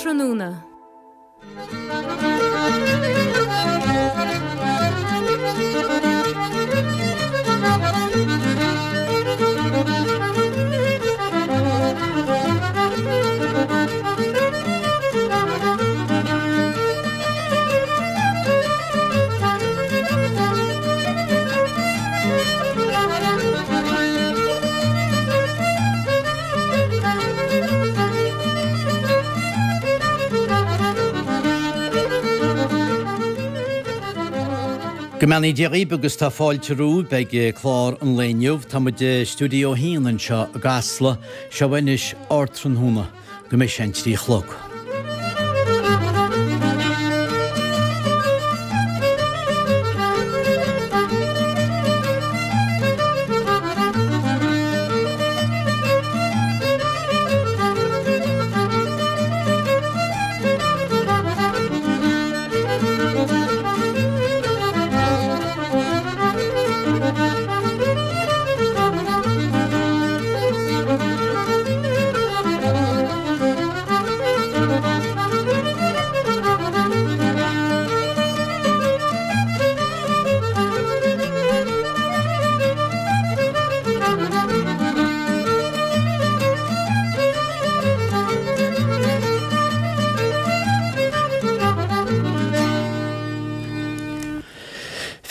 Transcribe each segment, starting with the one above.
Ardtráthnóna. Go mbeannaí Dia dhaoibh agus tá fáilte romhaibh ag clár an lae inniu. Tá muid i Stiúideo 1 anseo i gCasla. Seo anois Ardtráthnóna go mbeidh sé an 3 a chlog.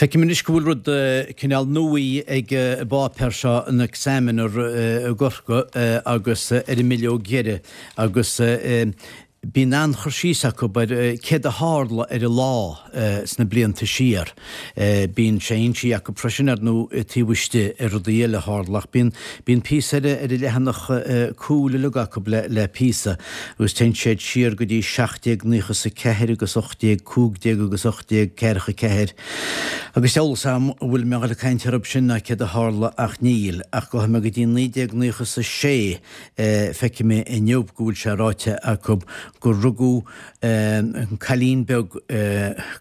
Feicim anois go bhfuil rud cineál nuaí ag an bpáipéar seo, an Examiner i gCorcaigh agus ar an mbileog dheiridh agus bíonn an-chur síos acu ar céard a tharla ar an lá sna blianta siar. Bíonn sé insithe acu freisin ar ndóigh taobh istigh ar rudaí eile a tharla ach bíonn bíonn píosa ar ar an leathanach cúil uilig acu le le píosa agus téann siad siar go dtí 1794 agus 1815 agus 1844 agus eolas a'm an bhfuil mé a dhul ag caint orthu sin ná céard a tharla ach níl ach gabhfaidh mé go dtí 1996 Feicfidh mé inniu go bhfuil sé ráite acu gur rugadh an cailín beag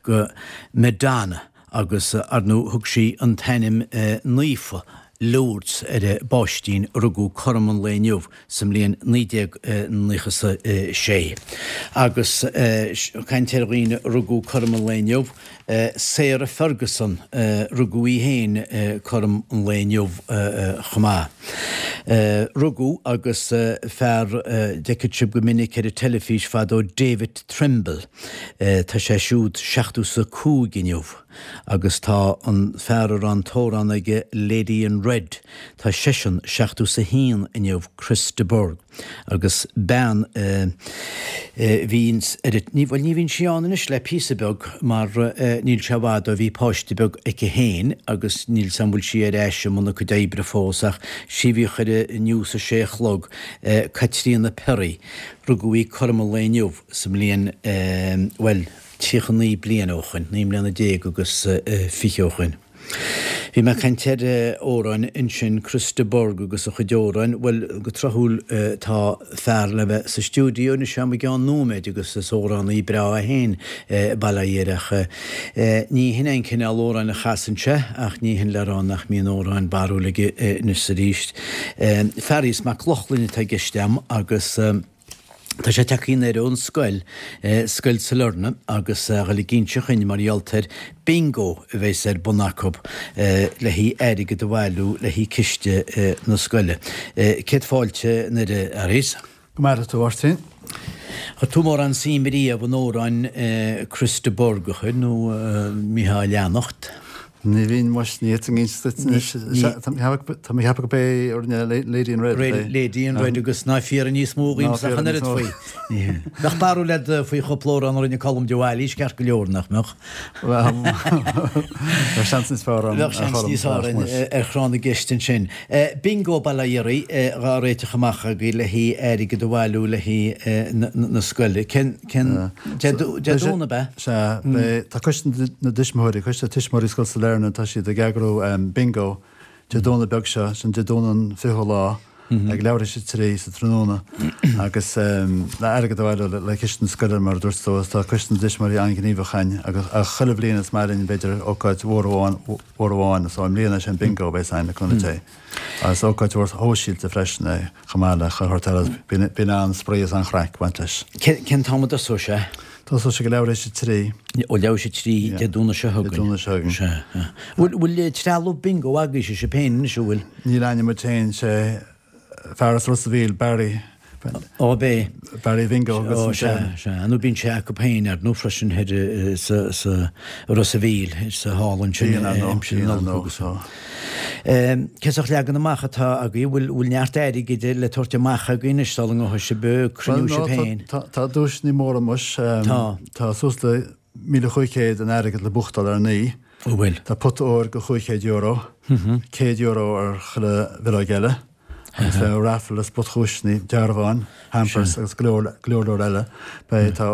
go Madonna agus ar ndóigh thug sí an t-ainm naofa Lourdes ar an bpáistín a rugadh cothrom an lae inniu sa mbliain 1996. Agus caint ar dhaoine a rugadh cothrom an lae inniu, Sarah Ferguson, rugadh í féin cothrom an lae inniu chomh maith. Rugadh agus fear d'fheicfeadh sibh go minic ar an teilifís fadó David Trimble, tá sé siúd 75 inniu agus tá an fear a raibh an t-amhrán aige Lady in Red, tá seisean 71 inniu, Chris de Burgh. Agus bean a bhíonns ar an, bhuel ní bhíonn sí ann anois le píosa beag mar níl sé i bhfad ó bhí páiste beag aici féin agus níl 's a'm bhfuil sí ar ais i mbun a cuid oibre fós ach sí a bhíodh ar an News a sé a chlog, Caitríona Perry. Rugadh í cothrom an lae inniu sa mbliain, bhuel, 39 bliain ó shoin, 19 mbliana agus 20 ó shoin. Bhí mé ag caint ar amhráin ansin, Chris de Burgh agus a chuid amhráin. Bhuel, go tráthúil tá fear le bheith sa stiúideo anois agam i gceann nóiméid agus is amhránaí breá é féin, bail ó Dhia air ach ní hin é an cineál amhráin a chasann sé ach ní hin le rá nach mbíonn amhráin barrúil aige anois is arís. Fearghas Mac Lochlainn atá i gceist agam agus. Tá sé tagtha anoir ón scoil, Scoil Sailearna, agus a dhul ag inse dhuinn mar gheall ar Bingo a bheas ar bun acu le haghaidh airgead a bhailiú le haghaidh ciste na scoile. Céad fáilte anoir a Fhearghais. Go maire tú, a Mháirtín. Chuir tú mórán suim riamh in amhráin Chris de Burgh, a chuir, nó mbítheá á leanacht? Ní bhínn muis, ní fhéadfainn inse duit anois. Tá mé ag ceapadh gurb é a rinne Lady in Red. Lady in Red agus ná fiafraigh níos mó dhíomsa ach an oiread faoi. Bheadh barúil agat faoi chúpla amhrán a rinne Colm de Bhailís ceart go leor, nach mbeadh? Bheadh seans níos fearr ann. Bheadh seans níos fearr ar thráth na gceist ansin. Bingo bail ó Dhia oraibh dhá réiteach amach agaibh le haghaidh airgead a bhailiú le haghaidh na scoile. Cén Cén Dé Domhnaigh ab ea? Sea, beidh, tá Coiste na dTuismitheoirí, Coiste Tuismitheoirí Scoil Sailearna, tá siad ag eagrú bingo Dé Domhnaigh beag seo, sin Dé Domhnaigh an 20ú lá, ag leathuair théis a 3 sa tráthnóna agus le airgead a bhailiú le ciste na scoile mar a dúirt tú agus tá Coiste na dTuismitheoirí an-ghníomhach ann agus ach chuile bhliain is maith linn b'fhéidir ócáid mhór amháin, mhór amháin so i mbliana is é an bingo a bheas ann le cúnamh Dé. Is ócáid mhór shóisialta freisin é chomh maith le chuile shórt eile. Bíonn an-spraoi is an-chraic ag baint leis. Cén t-am a dtosóidh sé? Tosóidh sé ag leathuair théis a trí. Ó leathuair théis a trí Dé Domhnaigh seo chugainn. Dé Domhnaigh seo chugainn. Sea. Bhfuil trealamh bingo agaibhse sibh féin anois, an bhfuil? Níl againne muid féin, sé fear as Ros a' Mhíl, Barry. Ó, b'é. Barry Bhingo agus Ó, sea, sea. Nó bíonn sé acu féin ar ndóigh freisin thoir sa, sa Ros a' Mhíl, sa halla ansin Bíonn ar ndóigh, aimsir na bíonn ar Nollag agus. so. Cén sórt leagan amach atá agaibh? Bhfuil, bhfuil neart airgid le tabhairt amach agaibh anois sula ngabhfaidh sibh ag cruinniú Bhuel, sibh no, féin? tá, tá duaiseanna móra muis. Tá. Tá suas le 1,500 in airgead le buachtáil ar an oíche. Ó bhfuil. Tá pota óir go €500, €100 ar chuile bhileog eile. Agus beidh raffle is spotdhuaiseanna, dearbháin, hampers agus go leor, go leor leor eile. Beidh, tá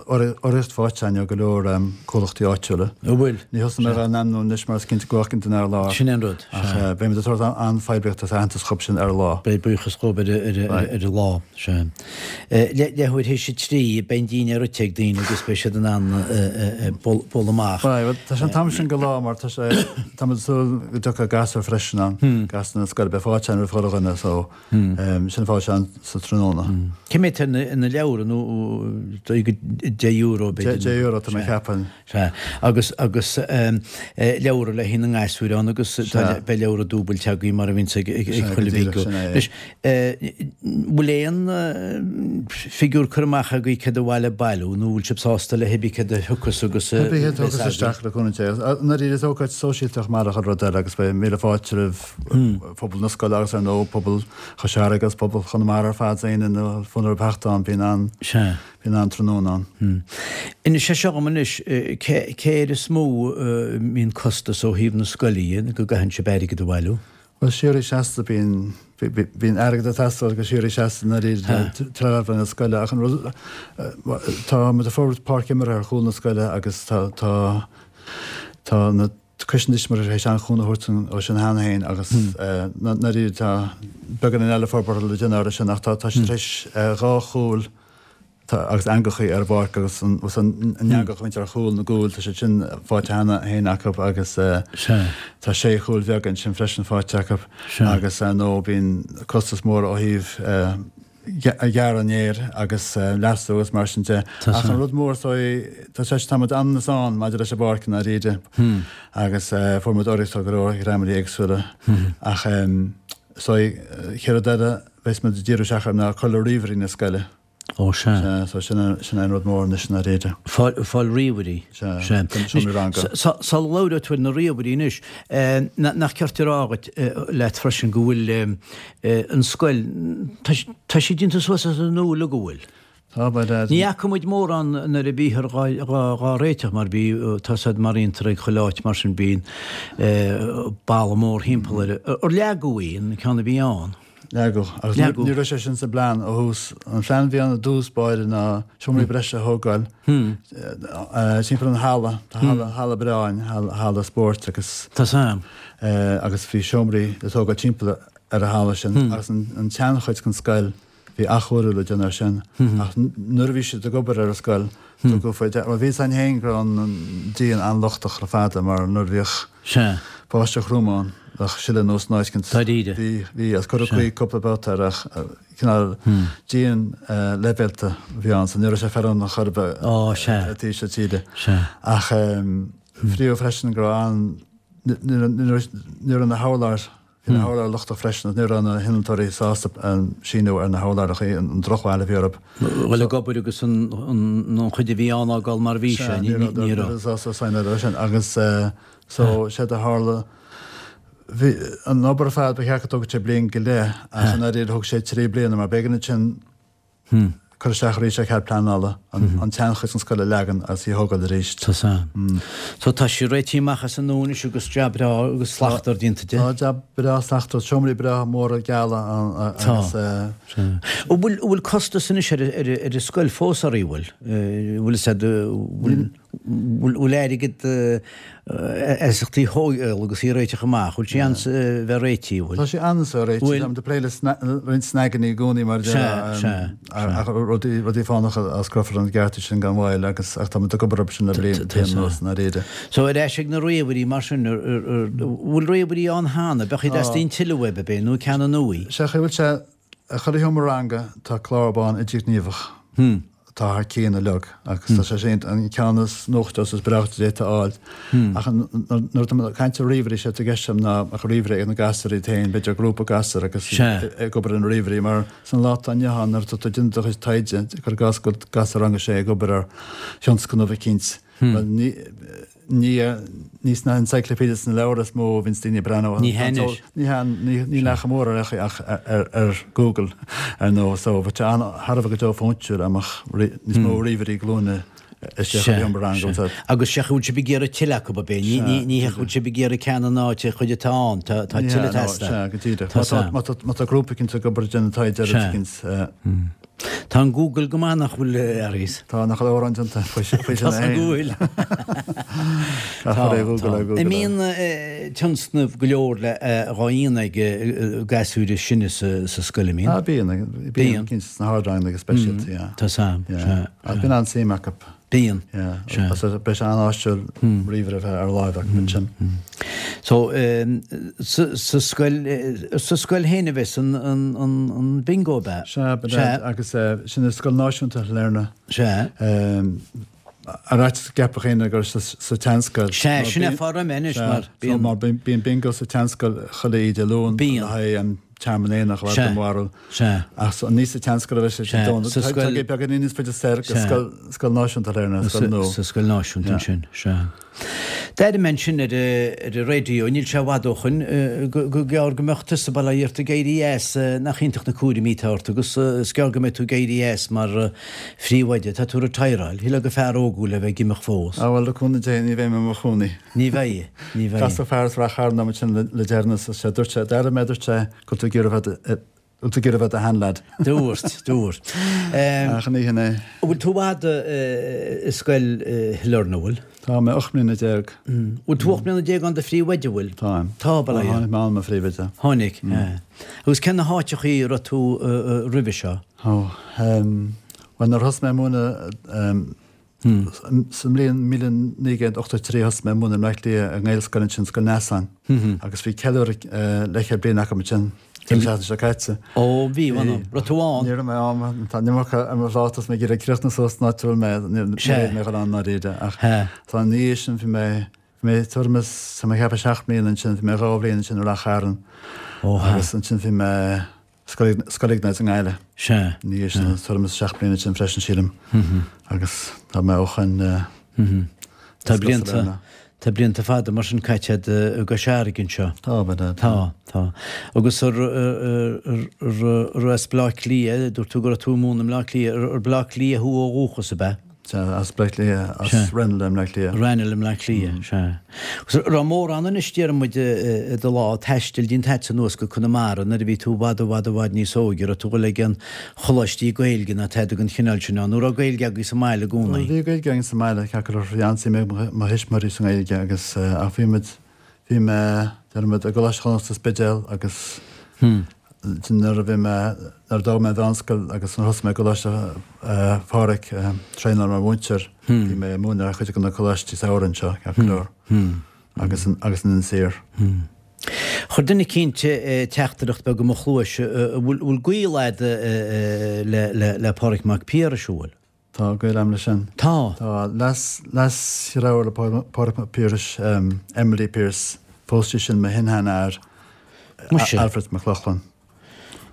urraíocht faighte againn ó go leor comhlachtaí áitiúla. An bhfuil? Ní thosóidh mé á n-ainmniú anois mar is cinnte go bhfágfainn duine ar lár. Sin é an rud. Ach beidh muid ag tabhairt an-phoiblíocht agus aitheantas dhób sin ar an lá. Beidh buíochas dhób ar an lá. Sea. Leathuair théis a 3, beidh an dínnéar ite ag daoine agus beidh siad in ann bualadh amach. Beidh, tá sé an t-am sin go lá mar tá sé, tá muid ag súil go dtiocfaidh gasúir freisin ann, gasúir na scoile, beidh fáilte ann roimh chuile dhuine so sin fáilte ann sa tráthnóna. Cé mhéad atá ina leabhra nó dóigh go €10 b'fhéidir? €10 tá mé ag ceapadh. Sea, agus, agus leabhra le haghaidh na ngasúir ann agus tá, beidh leabhra dúbailte agaibh mar a bhíonns ag, ag, ag chuile bhingo. Anois, bhfuil aon figiúr curtha amach agaibh céard ba mhaith le bailiú nó bhfuil sibh sásta le hibí céard a thiocfas agus a Hibí céard a thiocfas isteach le cúnamh Dé. Ndáiríre is ócáid sóisialta chomh maith le chuile rud eile agus beidh míle fáilte roimh phobal na scoile agus ar ndóigh pobal Chois Fharraige agus pobal Chonamara ar fad is éinne a bhfuil fonn orthu theacht ann bíonn an Sea. Bíonn an-tráthnóna ann. Inis é seo dhom anois, cé air is mó a mbíonn costas ó thaobh na scoile dhe, go gcaitheann sibh airgead a bhailiú? Bhuel, síoraí seasta, bíonn, bíonn airgead ag teastáil go síoraí seasta i ndáiríre trealamh na scoile ach an rud, tá muid ag forbairt páirc imeartha ar chúl na scoile agus tá, tá, tá na, Coiste na dTuismitheoirí tar éis an-chúnamh a thabhairt ó sin cheana féin agus ndáiríre tá beagáinín eile forbartha le déanamh orthu sin ach tá siad tar éis 2 chúl agus eangachaí ar an bpáirc agus an eangach a bhíonns ar chúl na gcúl tá siad sin faighte cheana féin acu agus tá sé chúl bheaga ansin freisin faighte acu agus ar ndóigh bíonn costas mór ó thaobh gearradh an fhéir agus leasú agus mar sin de. Ach an rud mór is dóigh, tá sé, tá muid anonn is ann maidir leis an bpáirc i ndáiríre agus fuair muid urraíocht ó go leor dhreamanna éagsúla. Ach is dóigh, chéad rud eile a bheas muid ag díriú isteach air ná cur le ríomhairí na scoile. Ó sea. Sea, so sin sin é an rud mór anois i ndáiríre. Fáil, fáil ríomhairí. Sea, Sea. don seomra ranga. Sula labhróidh tú ar na ríomhairí anois, nach ceart a rá dhuit, leat freisin go bhfuil an scoil, tá sí déanta suas as an nua uilig, an bhfuil? Tá, by dad. Ní fhaca muid mórán nuair a bhíthear dhá réiteach mar bhí, tá said mar fhiontar ag chuile áit mar sin bíonn balla mór thimpeall air. Ar leagadh í, an ceann a bhí ann? Leagadh. Agus Leagadh. ní raibh sé sin sa bplean ó thús. An plean a bhí ann i dtús báire ná seomraí breise a thógáil timpeall an halla. Tá halla, halla breá ann, halla spóirt agus. Tá sam. Agus bhí seomraí le tógáil timpeall ar an halla sin agus an tseanchuid den scoil, bhí athchóiriú le déanamh air sin. Ach nuair a bhí siad ag obair ar an scoil, tugadh faoi deara, bhuel bhí fhios againn féin go raibh an díon an-lochtach le fada mar nuair a bhíodh báisteach throm ann, bheadh sileadh anuas in áit éicint. Dáiríre. Bhí, bhí, agus cuireadh caoi cúpla babhta air ach cineál díon leibhéalta a bhí ann so ní raibh sé feiliúnach chor ar bith i dtaobh seo tíre. Ach fríothadh freisin go raibh an, ní raibh na hurláir, bhí na hurláir lochtach freisin agus ní raibh na hinnealtóirí sásta síniú ar na hurláir an drochbhail a bhí orthu. Dhul ag obair agus an chuid a bhí ann a fhágáil mar a bhí sé, ní raibh. Ní raibh sásta sign air sin agus so séard a tharla, bhí an obair ar fad ba cheart go dtógfadh sé bliain go leith ach i ndáiríre thóg sé 3 bliana mar b'éigean ansin cur isteach arís ar chead pleanála, an tseanchuid den scoil a leagan agus í a thógáil arís. Tá san. So tá sí réitithe amach as an nua anois agus jab breá agus slachtmhar déanta di. Tá jab breá slachtmhar, seomraí breá móra geala ann agus. Tá. An bhfuil, bhfuil costas anois ar, ar, ar an scoil fós oraibh, bhfuil? Bhfuil fhios a'd, bhfuil, Bhfuil airgead iasachtaí a thógáil agus í a réiteach amach? Bhfuil sé ann bheith réitithe, bhfuil? Tá sé ann is réitithe. Bhfuil? Táimid ag plé le roinnt snaganna i gcónaí mar a déarfá. Sea, sea. Ach rudaí, rudaí fánacha a osclófar an gearta sin gan mhoill agus ach táimid ag obair orthu sin le bliain anuas i ndáiríre. So ar ais ag na ríomhairí mar sin, bhfuil ríomhairí ann cheana? Bheadh iad teastaíonn tuilleadh uaibh, ab é, nó ceann nua? Sea, bhfuil sé I chuile sheomra ranga tá clár bán idirghníomhach atá thar cionn uilig agus tá sé sin an ceann is nuachta is breáichte a d'fhéadfá a fháil. Ach nuair atá mé ag caint ar ríomhairí, sé atá i gceist agam ná ach ríomhaire ag na gasúir iad féin, b'fhéidir grúpa gasúr agus ag obair ar na ríomhairí mar san lá atá inniu ann nuair atá tú ag déanamh do chuid taighde, cuir i gcás go bhfuil gasúr rang a sé ag obair ar thionscnamh eicínt, bhuel ní Ní, ní sna encyclopedias sna leabhair is mó a bhíonns daoine ag breathnú. Ní hea anois. Ní hea, níl ach mór ar ach ar Google ar ndóigh so bheadh sé thar a bheith go deo fóintiúil dá mbeadh níos mó ríomhairí glúine istigh sa seomra ranga. Sea, agus sea, bhfuil sibh ag iarraidh tuilleadh acu, ab é? Ní hea, bhfuil sibh ag iarraidh ceann in áit an chuid atá ann, tá tuilleadh ag teastáil. Sea, go díreach. Má tá grúpa eicínt ag obair ag déanamh taighde ar rud eicínt. Tá an Google go maith nach bhfuil a Fhearghais? Tá, nach bhfuil amhrán déanta faoi sin Tá san go bhfuil. Tá, tá. An mbíonn tionscnaimh go leor le dhá dhéanamh ag gasúir is sine sa scoil, an mbíonn? Ah, bíonn, bíonn, cinnte sna hardranganna go speisialta, yeah. Tá sam, sea. Ach bíonn an-suim acu. Bíonn. Yeah. Sea. Beidh sé an-áisiúil ríomhaire a bheith ar láimh acu ansin. So, sa scoil, sa scoil féin a bheas an, an, an bingo, ab ea? Sea, ba ea. Agus sin i Scoil Náisiúnta Shailearna. Sea. Ar fhaitíos go gceapfadh éinne gur sa tseanscoil. Sea, sin é fá raibh mé anois mar bíonn. Mar bíonn bingo sa tseanscoil chuile oíche Dé Luain le haghaidh an Tearmann Aonach a bheith i Sea. Ach so, ní sa tseanscoil a bheidh sé Sea, Dé Domhnaigh. sa Tá scoil. sé beagáinín níos faide soir go scoil, Scoil Náisiúnta Shailearna, scoil nua. Sa scoil náisiúnta ansin, sea. D'airigh mé ansin ar ar an raidió, níl sé i bhfad ó shoin, go gur gearr go mbeadh tusa bail ó Dhia ort ag éirí as, nach iontach na cúraimí atá ort agus is gearr go mbeidh tú ag éirí as mar phríomhoide. Tá tú retireáil, shílfeá gur fear óg thú le bheith ag imeacht fós. Ah bhuel, le cúnamh Dé, ní bheidh mé i mo chónaí. Ní bheidh, ní bheidh. Casadh fear as Rath Chairn liom ansin le deireanas agus sé dúirt sé, d'airigh mé, dúirt sé, Go bhfuil tú ag iarraidh a bheith, bhfuil tú ag iarraidh a bheith i do sheanleaid. Dúirt, dúirt. Ach ní hin é. An bhfuil tú i bhfad i scoil Shailearna, an bhfuil? Tá mé 18 mbliana. Bhfuil tú 18 mbliana ann i do phríomhoide, an bhfuil? Táim. Tá, bail ó Dhia. Tháinig mé ann mar phríomhoide. Tháinig, Agus cén na háiteachaí a raibh tú roimhe seo? Ó, bhuel nuair a thosaigh mé ag múineadh, Sa mbliain 1983 thosaigh mé ag múineadh i mBleá Cliath i nGaelscoil ansin, Scoil Neasáin, agus bhí ceiliúradh leathchéad bliain acu ansin an tseachtain seo caite. Ó, bhí, bhí. Raibh tú ann? Ní raibh mé ann, tá an iomarca ar mo phláta is mé ag iarraidh críochnú suas san áit a bhfuil mé, ní raibh mé ag dul ann i ndáiríre ach tá ina dhiaidh sin bhí mé, bhí mé tuairim is, tá mé ag ceapadh seacht mbliana ansin, bhí mé dhá bhliain ansin i Rath Chairn agus ansin bhí mé, Scoil Iognáid i nGaillimh. Sea. Ina dhiaidh sin, tuairim is 7 mbliana ansin freisin, sílim. Agus tá mé ó shoin Tá blianta, tá blianta fada mar sin caite agat i gCois Fharraige anseo. Tá, ba ea. Tá, tá. Agus ar, ar, as Bleá Cliath, dúirt tú go raibh tú ag múineadh i mBleá Cliath, ar Bleá Cliath thú ó dhúchas, ab ea? Sea, as Bleá Cliath, as Ranelagh i mBleá Cliath. Ranelagh i mBleá Cliath, sea. Agus an raibh mórán anois, déarfaidh muid, i do lá taistil déanta agatsa anuas go Conamara nuair a bhí tú i bhfad, i bhfad, i bhfad níos óige, raibh tú ag dul ag aon choláistí Gaeilge ná tada den chineál sin ann, nó raibh Gaeilge agaibh sa mbaile i gcónaí? Bhí Gaeilge againn sa mbaile, ceart go leor, bhí an-suim ag mo thuismitheoirí sa nGaeilge agus, ach bhí muid, Bhí mé, déarfaidh muid, i gColáiste Chonnacht sa Spidéal agus nuair a bhí mé, nuair a d'fhág mé an mheánscoil agus nuair a thosaigh mé i gColáiste Phádraig, traenáil mar mhúinteoir, bhí mé ag múineadh ar chuid de na coláistí samhraidh anseo, ceart go leor, agus agus in Inis Oírr. Chuir duine eicínt teachtaireacht beag i mo chluais, an bhfuil gaol a'd le le Pádraig Mac Piarais, an bhfuil? Tá gaol agam leis sin. Tá. Tá. Leas, leasdheartháir le Pádraig Mac Piarais, Emily Pearse, phós sí sin mo shin-sheanathair, Muise. Alfred Mac Lochlainn.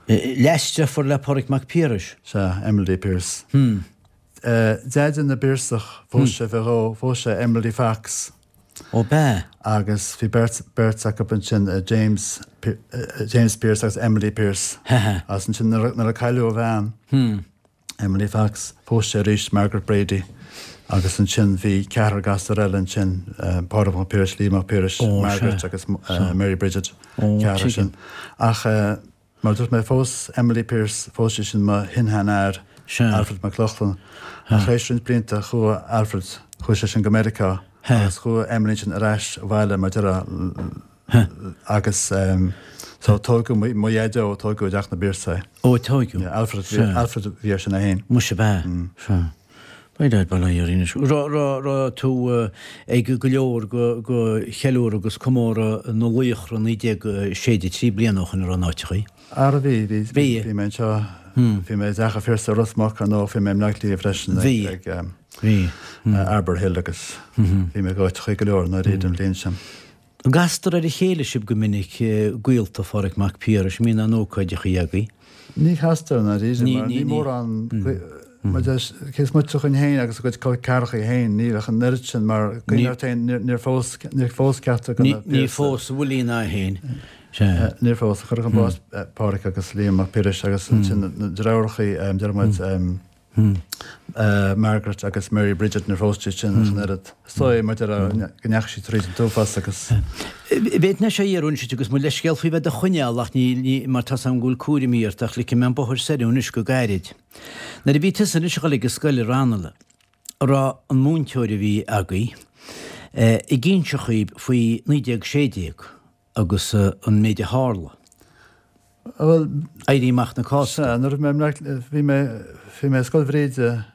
Leasdeirfiúr le Pádraig Mac Piarais? Sea, Emily Pearse. Deaide na bPiarsach, phós sé fé dhó, phós sé Emily Fox. Ó b'ea? Agus bhí beirt, beirt acu ansin, James, James Pearse agus Emily Pearse. Agus ansin nuair a, nuair a cailleadh a bhean, Emily Fox, phós sé arís Margaret Brady agus ansin bhí ceathrar gasúr eile ansin, Pádraig Mac Piarais, Liam Mac Piarais, Margaret agus Mary Bridget, ceathrar sin. Ach mar a dúirt mé, phós Emily Pearse, phós sí sin mo shin-sheanathair. Alfred Mac Lochlainn. Ach tar éis roinnt blianta chuaigh Alfred, chuaigh sé sin go Meiriceá agus chuaigh Emily ansin ar ais abhaile mar déarfá agus so tógadh mo dhaideo, tógadh i dteach na bPiarsaigh é. Ó tógadh. Yeah, Alfred, Alfred a bhí air sin é féin. Muise ab ea? Sea. By dad, bail ó Dhia orainn anois. Raibh tú ag go leor go cheiliúradh agus comóradh na Laochra 1963 bliana ó shoin an raibh in áiteachaí? Ara bhí, bhí, bhí, bhí mé anseo, bhí mé i dTeach an Phiarsaigh i Ros Muc ar ndóigh, bhí mé i mBleá Cliath freisin ag bhí, Arbour Hill agus bhí mé ag áiteachaí go leor i ndáiríre an bhliain sin. An gcastar ar a chéile sibh go minic, gaolta Pháraic Mac Piarais, an mbíonn aon ócáideachaí agaibh? Ní chastar, i ndáiríre, mar ní mórán, mar deis, cé is moite dhúinn féin agus a gcuid col ceathrachaí féin, níl ach an oiread sin, mar cuimhnigh ort féin, níor phós, níor phós ceachtar de na Piarsaigh. Níor phós a Willie ná é féin, sea. Níor phós, cuireadh chun báis Páraic agus Liam Mac Piarais agus ansin na deartháireachaí, deir muid, Margaret agus Mary Bridget níor phós siad sin ach an oiread. Is dóigh, mar déarfá, go ndeachaigh siad tríd an t-uafás agus. B'fhéidir nach sé iarraidh anois agus mo leithscéal faoi bheith do choinneáil ach ní, mar tá's agam go bhfuil cúraimí ort ach ligfidh mé an bóthar soir anois go gairid. Nuair a bhí tusa anois ag dul ag an scoil i Raghnallach, an raibh an múinteoir a bhí agaibh ag inse dhaoib faoi 1916 agus an méid a tharla? Bhuel. Éirí Amach na Cásca. Sea, nuair a bhí mé i mBleá Cliath, bhí mé, bhí mé i Scoil Bhríde,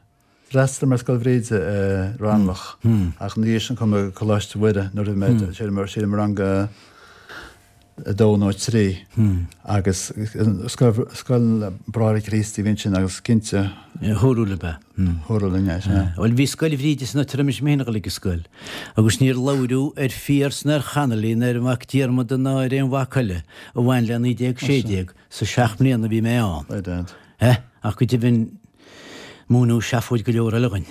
d'fhreastail mé ar Scoil Bhríde i Raghnallach ach ina dhiaidh sin chuaigh mé go Coláiste Mhuire nuair a bhí mé, sílim, sílim i rang a dó nó a trí agus scoil, scoil Bráithre Críostaí a bhí ansin agus cinnte. Dúradh lib é. Dúradh linn é, sea. Bhuel, bhí Scoil Bhríde san áit a raibh mise féin ag dul ag an scoil agus níor labhradh ar Phiarsa ná ar Connolly ná ar Mhac Diarmada ná ar aon mhac eile a bhain le 1916 sa seacht mbliana a bhí mé ann. By dad. Eh? Ach go deimhin múineadh seafóid go leor eile dhuinn.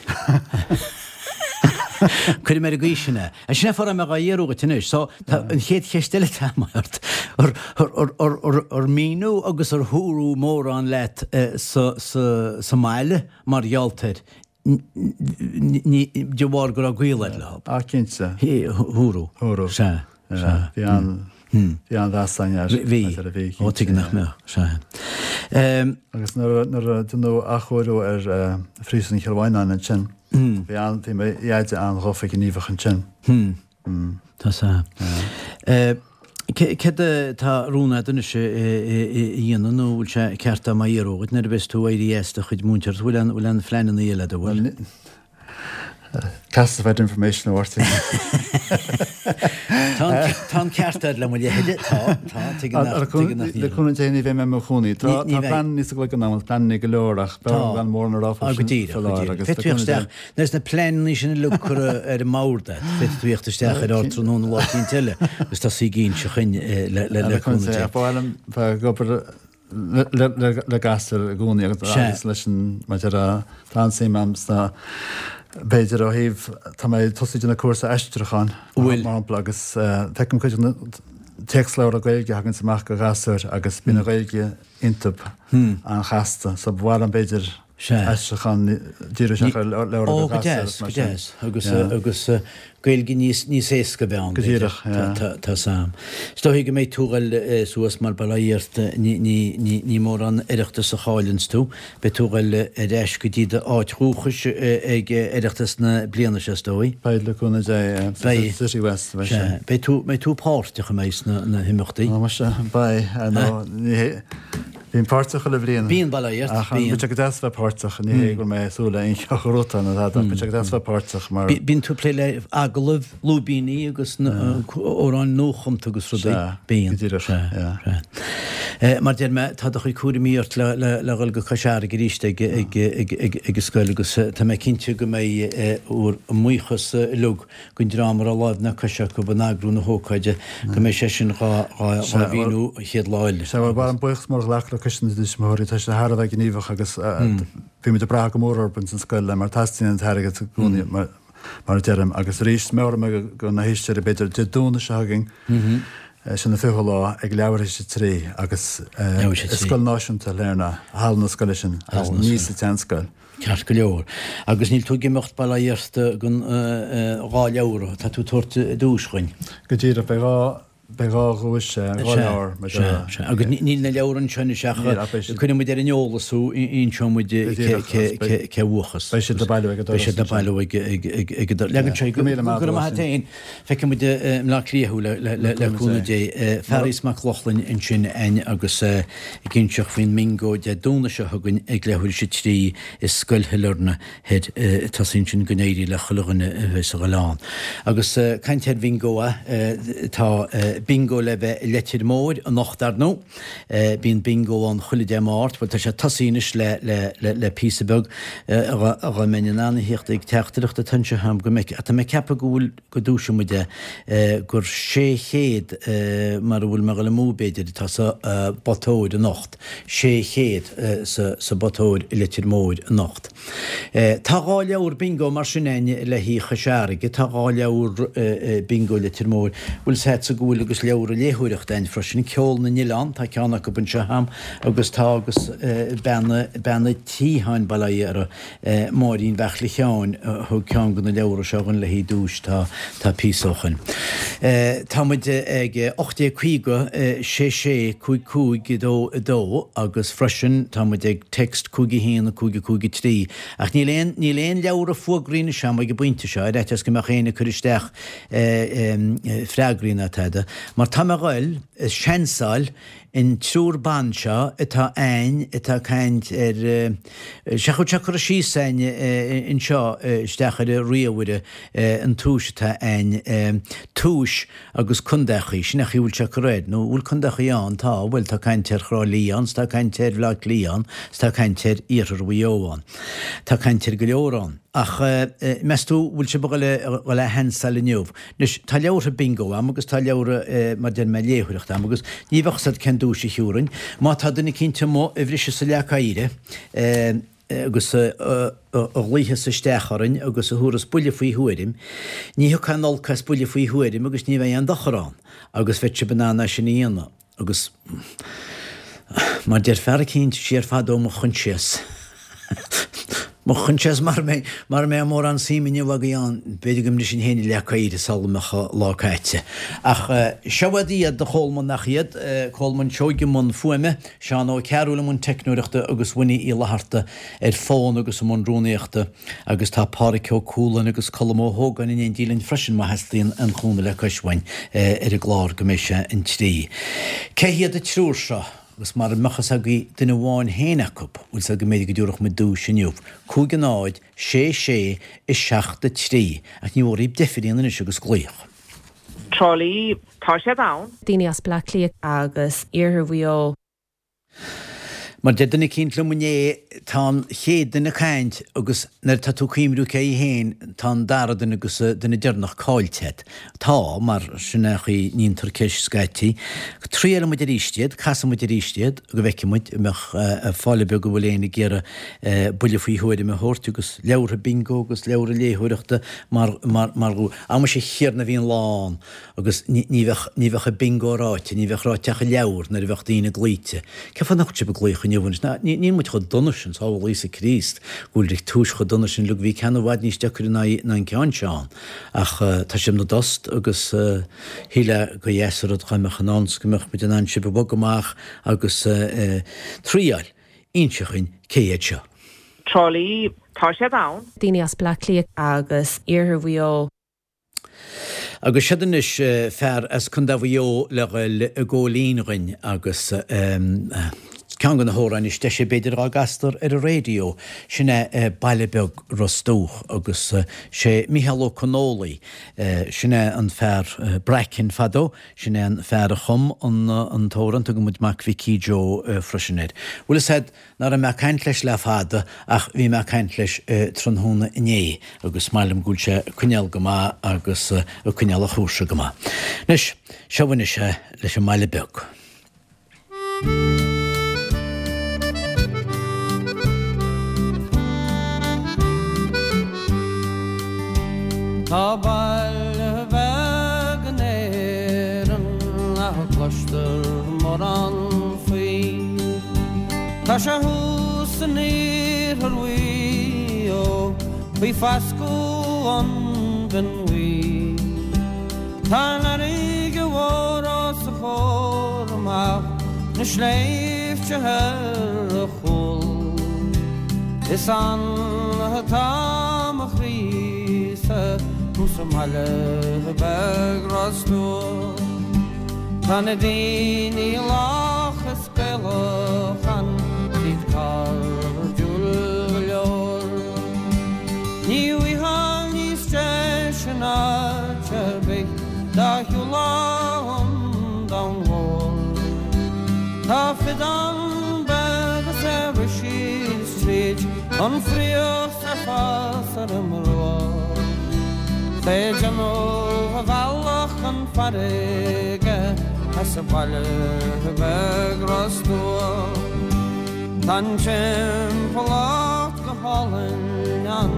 Cuirfidh mé ar an gcaoi sin é. Sin é fá raibh mé dhá iarraidh dhuit anois. So, tá an chéad cheist eile atá agam ort. Ar míniú agus ar dúradh mórán leat sa sa mbaile mar gheall air de bharr go raibh gaol agat leo? Ah, cinnte. Dúradh. Dúradh. Sea. Sea. Bhí an bhí an-mheas againn air. Bhí. Bhí. Ó, tuige nach mbeadh. Sea. Agus nuair a deineadh athchóiriú ar Phríosún Chill Mhaighneáin ansin, bhí an bhí mo dheaide an-ghafa gníomhach ansin. Tá sea. Céard atá rún agat anois a dhéanamh nó bhfuil sé ceart dom a fhiafraí dhuit nuair a bheas tú éirithe as do chuid múinteoireachta, bhfuil aon bhfuil aon phleananna eile agat, an bhfuil? Classified information a Mháirtín. Tá an tá an ceart agat le mo leithide, tá, tá, tuigim nach tuigim nach Le cúnamh Dé ní bheidh mé i mo chónaí. Tá tá pleananna sa gcloigeann agam, pleananna go leor ach b'fhearr gan mórán a rá faoi sin faoi láthair agus le cúnamh Dé. Nuair is na pleananna sin uilig curtha ar an mbord agat, féadfaidh tú theacht isteach ar Ardtráthnóna lá eicínt eile agus tosaí ag inse dhuinn le cúnamh Dé. Ba mhaith liom bheith ag obair le gasúir i gcónaí agus leis an, maidir le, tá an-suim agam sna, b'fhéidir ó thaobh, tá mé ag tosú ag déanamh cúrsa aistriúcháin, mar shampla, agus feicim cuid de na téacsleabhra Gaeilge a thaganns amach do ghasúir agus bíonn an Ghaeilge iontub an-chasta, so ba mhaith liom b'fhéidir aistriúchán díriú isteach ar leabhra do ghasúir agus mar sin. Ó, go deas, go deas. Agus Gaeilge níos níos éasca a bheith ann, Go b'fhéidir. díreach, yeah. Tá tá's a'm. Is dóigh go mbeidh tú ag dul suas mar bail ó Dhia ort, ní ní ní ní mórán Oireachtas a chailleanns tú. Beidh tú ag dul ar ais go dtí do áit dhúchais ag Oireachtas na bliana seo is dóigh. Beidh, le cúnamh Dé, yeah. Beidh. City West, beidh sé. Sea. Beidh tú mbeidh tú páirteach an mbeidh sna na himeachtaí? Ó, muise, beidh, ar ndóigh, ní hé, Bím páirteach chuile bhliain. Bíonn, bail ó Dhia ort, Ach bíonn. Bíonn sé go deas bheith páirteach, ní hé go bhfuil mé ag súil le aon cheo gnótha nó tada, ach bíonn sé go deas bheith páirteach mar. Bíonn tú ag plé le agallaimh, lúibíní agus amhráin nuachumta agus rudaí. Sea, Bíonn. go díreach, yeah. Sea. Mar deir mé, tá do chuid cúraimí ort le le dhul go Cois Fharraige arís ag ag ag ag ag an scoil agus tá mé cinnte go mbeidh bhur mbuíochas uilig don dream a raibh láimh ná cois acu in eagrú na hócáide, go mbeidh sé sin dhá mhíniú an chéad lá eile. Sea, bhuel, ba mhaith liom buíochas mór a ghlacadh le Coiste na dTuismitheoirí, tá siad thar a bheith gníomhach agus bhí muid ag brath go mór orthu ins an scoil mar teastaíonn an t-airgead i gcónaí mar a deirim. Agus arís, meabhróidh mé do na héisteoirí b'fhéidir Dé Domhnaigh seo chugainn, sin an 20ú lá, ag leathuair théis a 3 agus i Scoil Náisiúnta Shailearna, halla na scoile sin agus ní sa tseanscoil. Ceart go leor. Agus níl tú ag imeacht, bail ó Dhia ort, gan 2 leabhar, tá tú ag tabhairt duais dhuinn. Go díreach, beidh 2. Beidh 2 dhuais, 2 leabhar mar seo. Sea, sea. Agus níl na leabhair anseo anois ach cuirfidh muid ar an eolas thú, inseoidh muid cé bhuachas. Beidh siad le bailiú ag an doras. Beidh siad le bailiú ag an doras. Leagann sé go raibh maith agat féin. Feicfidh muid i mBleá Cliath thú le cúnamh Dé. Fearghas Mac Lochlainn ansin a'inn agus ag inseacht faoin mbingo Dé Domhnaigh seo chugainn ag leathuair théis 3 i Scoil Shailearna. Thoir tosaí ansin go n-éirí le chuile dhuine a bheas a ghoil ann. Agus caint ar bhingo, tá bingo le bheith i Leitir Móir anocht ar ndóigh. Bíonn bingo ann chuile Dé Máirt. Bhuel tá sé tosaithe anois le le le le píosa beag dá mbeinn in ann a thíocht ag teachtaireacht atá anseo agam go mbeidh tá mé ag ceapadh go bhfuil go dtúisfidh muid é gur 600 mar a bhfuil mé a dhul amú b'fhéidir atá sa bpota óir anocht. 600 sa bpota óir i Leitir Móir anocht. Tá 2 leabhar bingo mar sin a'inn le haghaidh Chois Fharraige, tá 2 leabhar bingo Leitir Móir, bhfuil 's a'dsa go bhfuil agus leabhra léitheoireachta a'inn freisin, Ceol na nOileán, tá ceann acu anseo a'm agus tá agus bean bean a' tí tháin bail ó Dhia uirthi, Máirín Bheartla Sheáin a thug ceann de na leabhra seo dhúinn le haghaidh duais tá tá píosa ó shoin. Tá muid ag 1850 6 6 5 5 2 2 agus freisin tá muid ag text 5 1 5 5 3 ach níl aon níl aon leabhra fuagraí anois a'm ag an bpointe seo ar fhaitíos go mbeadh éinne ag cur isteach freagraí ná tada mar tá mé a ghoil a seansáil An triúr ban seo atá a'ainn atá ag caint ar, sea chuir sé cur síos a'ainn anseo isteach ar an ríomhaire an tomhais atá a'ainn, tomhais agus contaechaí, sin é an chaoi a bhfuil sé ag cur air, nó bhfuil contaechaí ann, tá, bhuel tá caint ar Thrá Lí ann, 's tá caint ar Bhleá Cliath ann, 's tá caint ar Iarthar Mhaigh Eo ann. Tá caint ar go leor ann. Ach meas tú bhfuil sibh a dhul a sheansáil inniu? Anois, tá leabhartha bingo a'm agus tá leabhra, mar deir mé, léitheoireachta a'm agus ní bheadh 's a'd cén duais a thiúrfainn. Má tá duine eicínt amuigh a bhriseas an leac oighre agus a ghlaothas isteach orainn agus a thabharfas buille faoi thuairim, ní thiocfaidh aon olc as buille faoi thuairim agus ní bheidh aon dochar ann agus bheadh sibh in ann é sin a dhéanamh. Agus mar deir fear eicínt siar fadó mo choinsias, mo choinsias mara mbeidh, mara mbeidh mórán suim inniu agaibh ann, b'fhéidir go mbrisfinn féin an leac oighre sula mbeadh an lá caite. Ach seo iad iad, a Cholmáin, nach iad, Colmán Seoighe i mbun fuaime, Seán Ó Cearúil i mbun teicneoireachta agus Winnie Uí Fhlatharta ar fón agus i mbun rúnaíochta. Agus tá Pádhraic Ó Cualáin agus Colm Ó hÓgáin in éindí linn freisin má theastaíonn aon chúnamh le cois uainn ar an gclár go mbeidh sé an 3. Cé hiad an triúr seo? Agus mara mbeadh fhios agaibh duine amháin féin acu, bhfuil 's a'd go mb'fhéidir go dtiúrfadh muid duais inniu. 5 0 6 6 7 3. Ach ní mhór dhaoib deifir a dhéanamh anois agus glaoch. Trá Lí, tá siad ann. Daoine as Bleá Cliath. Agus Iarthar Mhaigh Eo. Mar deir duine eicínt liom inné, tá an chéad duine ag caint agus nuair atá tú ag cuimriú cé hé féin, tá an dara duine agus an duine deireanach caillte agat. Tá, mar sin é an chaoi ndéantar ceist scaití. Triailfidh muid arís iad, casfaidh muid arís iad go bhfeicfidh muid an mbeadh fáil beag an bhfuil éinne ag iarraidh buille faoi thuairim a thabhairt agus leabhartha bingo agus leabhartha léitheoireachta mar, mar, mar, a mhuise a Thiarna bhí an lá ann. Agus ní bheadh, ní bheadh an bingo ráite, ní bheadh ráite ach an leabhar nuair a bheadh daoine glaoite. Cén fáth nach bhfuil sibh ag glaoch inniu anois? Ná, ní, níl muid chomh dona sin, sábháil Íosa Críost, go bhfuil tomhais chomh dona sin, look, bhí ceann i bhfad níos deacair ná, ná an ceann seo ann. Ach tá sibh 'na dtost agus shílfeá gur dheas an rud dhá mbeadh in ann 's go mbeadh muid in ann sibh a bhogadh amach agus triáil. Inse dhuinn cé hiad seo. Trá Lí, tá siad ann. Daoine as Bleá Cliath. Agus Iarthar Mhaigh Eo. Agus siod anois fear as Contae Mhaigh Eo le ghoil i gcóilín dhuinn agus ceann de na hamhráin is deise b'fhéidir dhá gcastar ar an raidió, sin é Baile Beag Ros Dumhach agus sé Mícheál Ó Connólaigh, sin é an fear Bracken fadó, sin é an fear a chum an t-amhrán, tugann muid Mac Mhicí Joe freisin air. Bhfuil fhios a'd, Ná raibh mé ag caint leis le fada ach bhí mé ag caint leis tráthnóna inné agus maith liom go bhfuil sé ag coinneáil go maith agus ag coinneáil a chúrsa go maith. Anois, seo anois é leis an mBaile Beag. Tá baile beag in Éirinn nach gcloistear mórán faoi. Tá sé thuas in iarthar Mhaigh Eo faoi foscadh an Bhinn Bhuí. Tá an fharraige mhór ó. na sléibhte ar a chúl. Is ann atá mo chroí-sa sa mbaile beag Ros Dumhach. Tá na daoine lách is Gaelach ann, 's iad cairdiúil go leor. Ní bhfaightheá níos deise in áit ar bith dá shiúlfá an domhan mhór. Tá feadán beag is é ag rith síos tríd an fraoch 's ag fás ar an mbruach. 'S é ag déanamh a bhealach chun farraige as an bhaile beag Ros Dumhach. Tá an timpeallacht go hálainn ann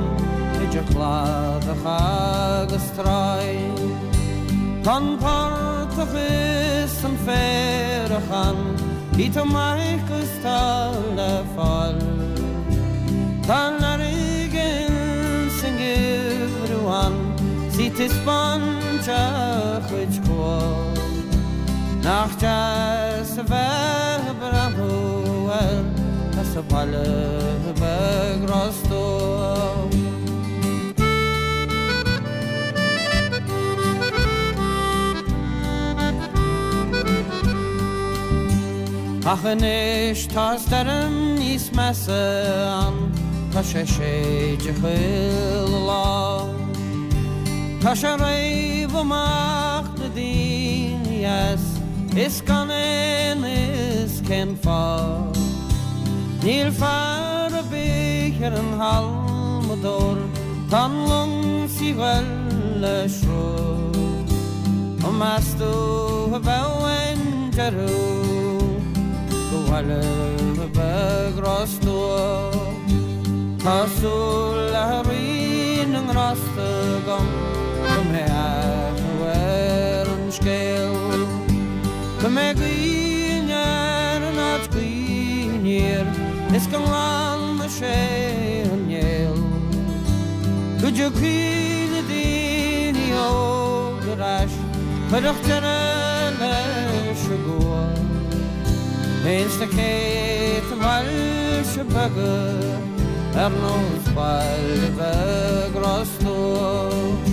idir chladach agus tráigh. Tá an portach is an féarach ann, tá maith 'gus tá le fáil. Tá an fharraige ins an ngeimhreadh ann 's í taispeáint a cuid cumha. Nach deas a bheith ag breathnú air as an bhaile beag Ros Dumhach. Ach anois tá stoirm níos measa ann, tá sé ag séideadh chuile lá. Tá sé ag réabadh amach na daoine as is gan aon fhios cén fáth. Níl fear ar bith ar an halmadóir, tá an long 's í 'ghoil le sruth. An meas tú a bheadh aon deireadh go bhaile beag Ros Dumhach? Tá súil le Rí na nGrásta agam go mbeidh athrú ar an scéal, go mbeidh gaoth aniar in áit gaoth aniar is go nglanfaidh sé an néal, go dtiocfaidh na daoine óga ar ais, chuirfeadh deireadh leis an gcumha. Ins na céadta bailte beaga ar nós baile bheag Ros Dumhach.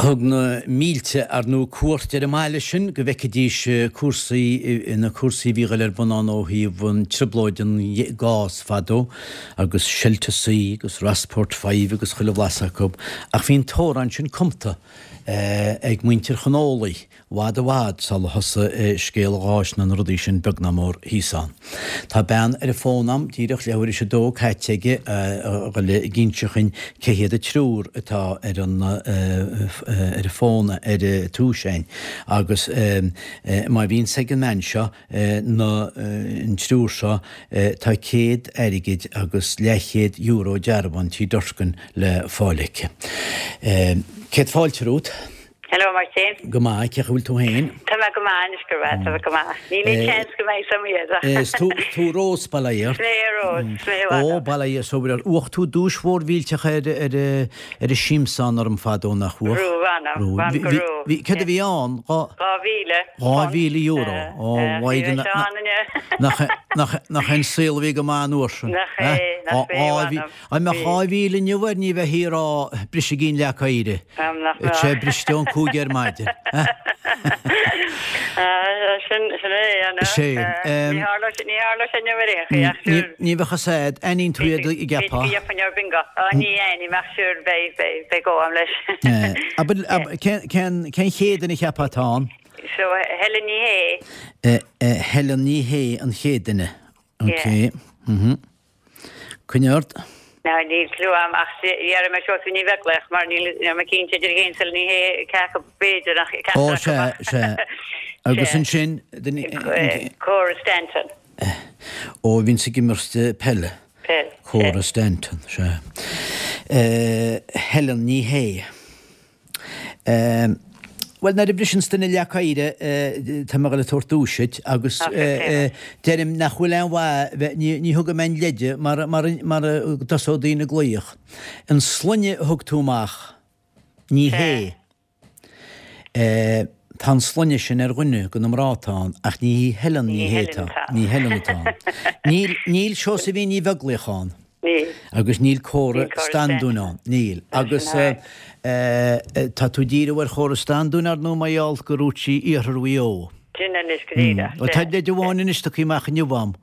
Thug na mílte, ar ndóigh, cuairt ar an mbaile sin go bhfeicfidís cúrsaí, na cúrsaí a bhí ag dul ar bun ann ó thaobh an trioblóid an gás fadó agus Shelter C agus Rossport Five agus chuile bhlas acu. Ach bhí an t-amhrán sin cumta ag muintir Chon Ólaigh i bhfad i bhfad sula thosaigh scéal an gháis ná na rudaí sin beag ná mór thíos ann. Tá bean ar an bhfón a'm díreach leathuair théis a dó caite aige a dhul ag inse chuinn cé hiad an triúr atá ar an ar an bhfón ar túis a'inn agus má bhíonns ag an mbean seo na an triúr seo tá céad airgid agus leathchéad euro dearbhán Tí Durkin le fáil aici. Céad fáilte romhat. Hello Máirtín. Go maith, cén chaoi a bhfuil tú féin? Tá mé go maith anois go raibh, tá mé go maith. Níl aon seans go mbeidh some iad. Is tú, tú Rós, bail ó Dhia ort. Is mé Rós, is mé Rós. Ó, bail ó Dhia is obair ort. Bhuaigh tú duais mhór mhillteach ar, ar, ar an siamsán orm fadó nach bhuaigh? Raibh, mh'anam, mh'anam go raibh. Bhí, céard a bhí ann? 2,000. €2,000. Ó, mhaighdean, nach, nach, nach é an saol a bhí go maith an uair sin? Nach é, nach é, mh'anam. Dá mbeadh 2,000 inniu air ní bheifí ag rá brisigí an leac oighir. Tá sé briste ón 5 ar maidin. Sin é, an ea? Ní tharlódh sé inniu ar aon chaoi ach sure. Ní bheadh fhios a'd, aithníonn tú iad an gceapfá? B'fhéidir go gheobhainn ar bingo. Ní aithním ach sure beidh, beidh, beidh go a'm leis. Cén chéad duine a cheapfá atá ann? So Helen Ní Shé. Helen Ní Shé an chéad duine. Ok. Coinnigh ort. Now níl clue a'm ach déarfaidh mé Seosamh Ní Bheaglaoich mar níl níl mé cinnte idir í féin is Helen Ní Shé cé acu b'fhéidir ach Ó ceachtar acu sea, ach sea. Agus ansin, duine, Cora Stanton. Ó a bhíonns ag imirt peile. Peil, sea. Cora Stanton, sea. Helen Ní Shé. Bhuel, nuair a bhriseanns duine leac oighir, tá mé ag dul ag tabhairt duais duit agus deirim nach bhfuil aon mhaith bheith, ní thugaim aon leide mar mar go dtosóidh daoine ag glaoch. An sloinne a thug tú amach, ní hé. Tá an sloinne sin ar dhuine de na mná atá ann ach ní hí Helen Ní Shé atá, ní Helen atá ann. Níl, níl Seosaimhín Ní Bheaglaoich ann. Níl. Agus níl Córa Standún ann. Níl. Agus tá tú ag díriú ar Chóra Standún, ar ndóigh, mar gheall gur dhúirt sí Iarthar Mhaigh Eo. Sin anois go díreach. Bhuel, tá leid amháin anois tugtha amach inniu a'm.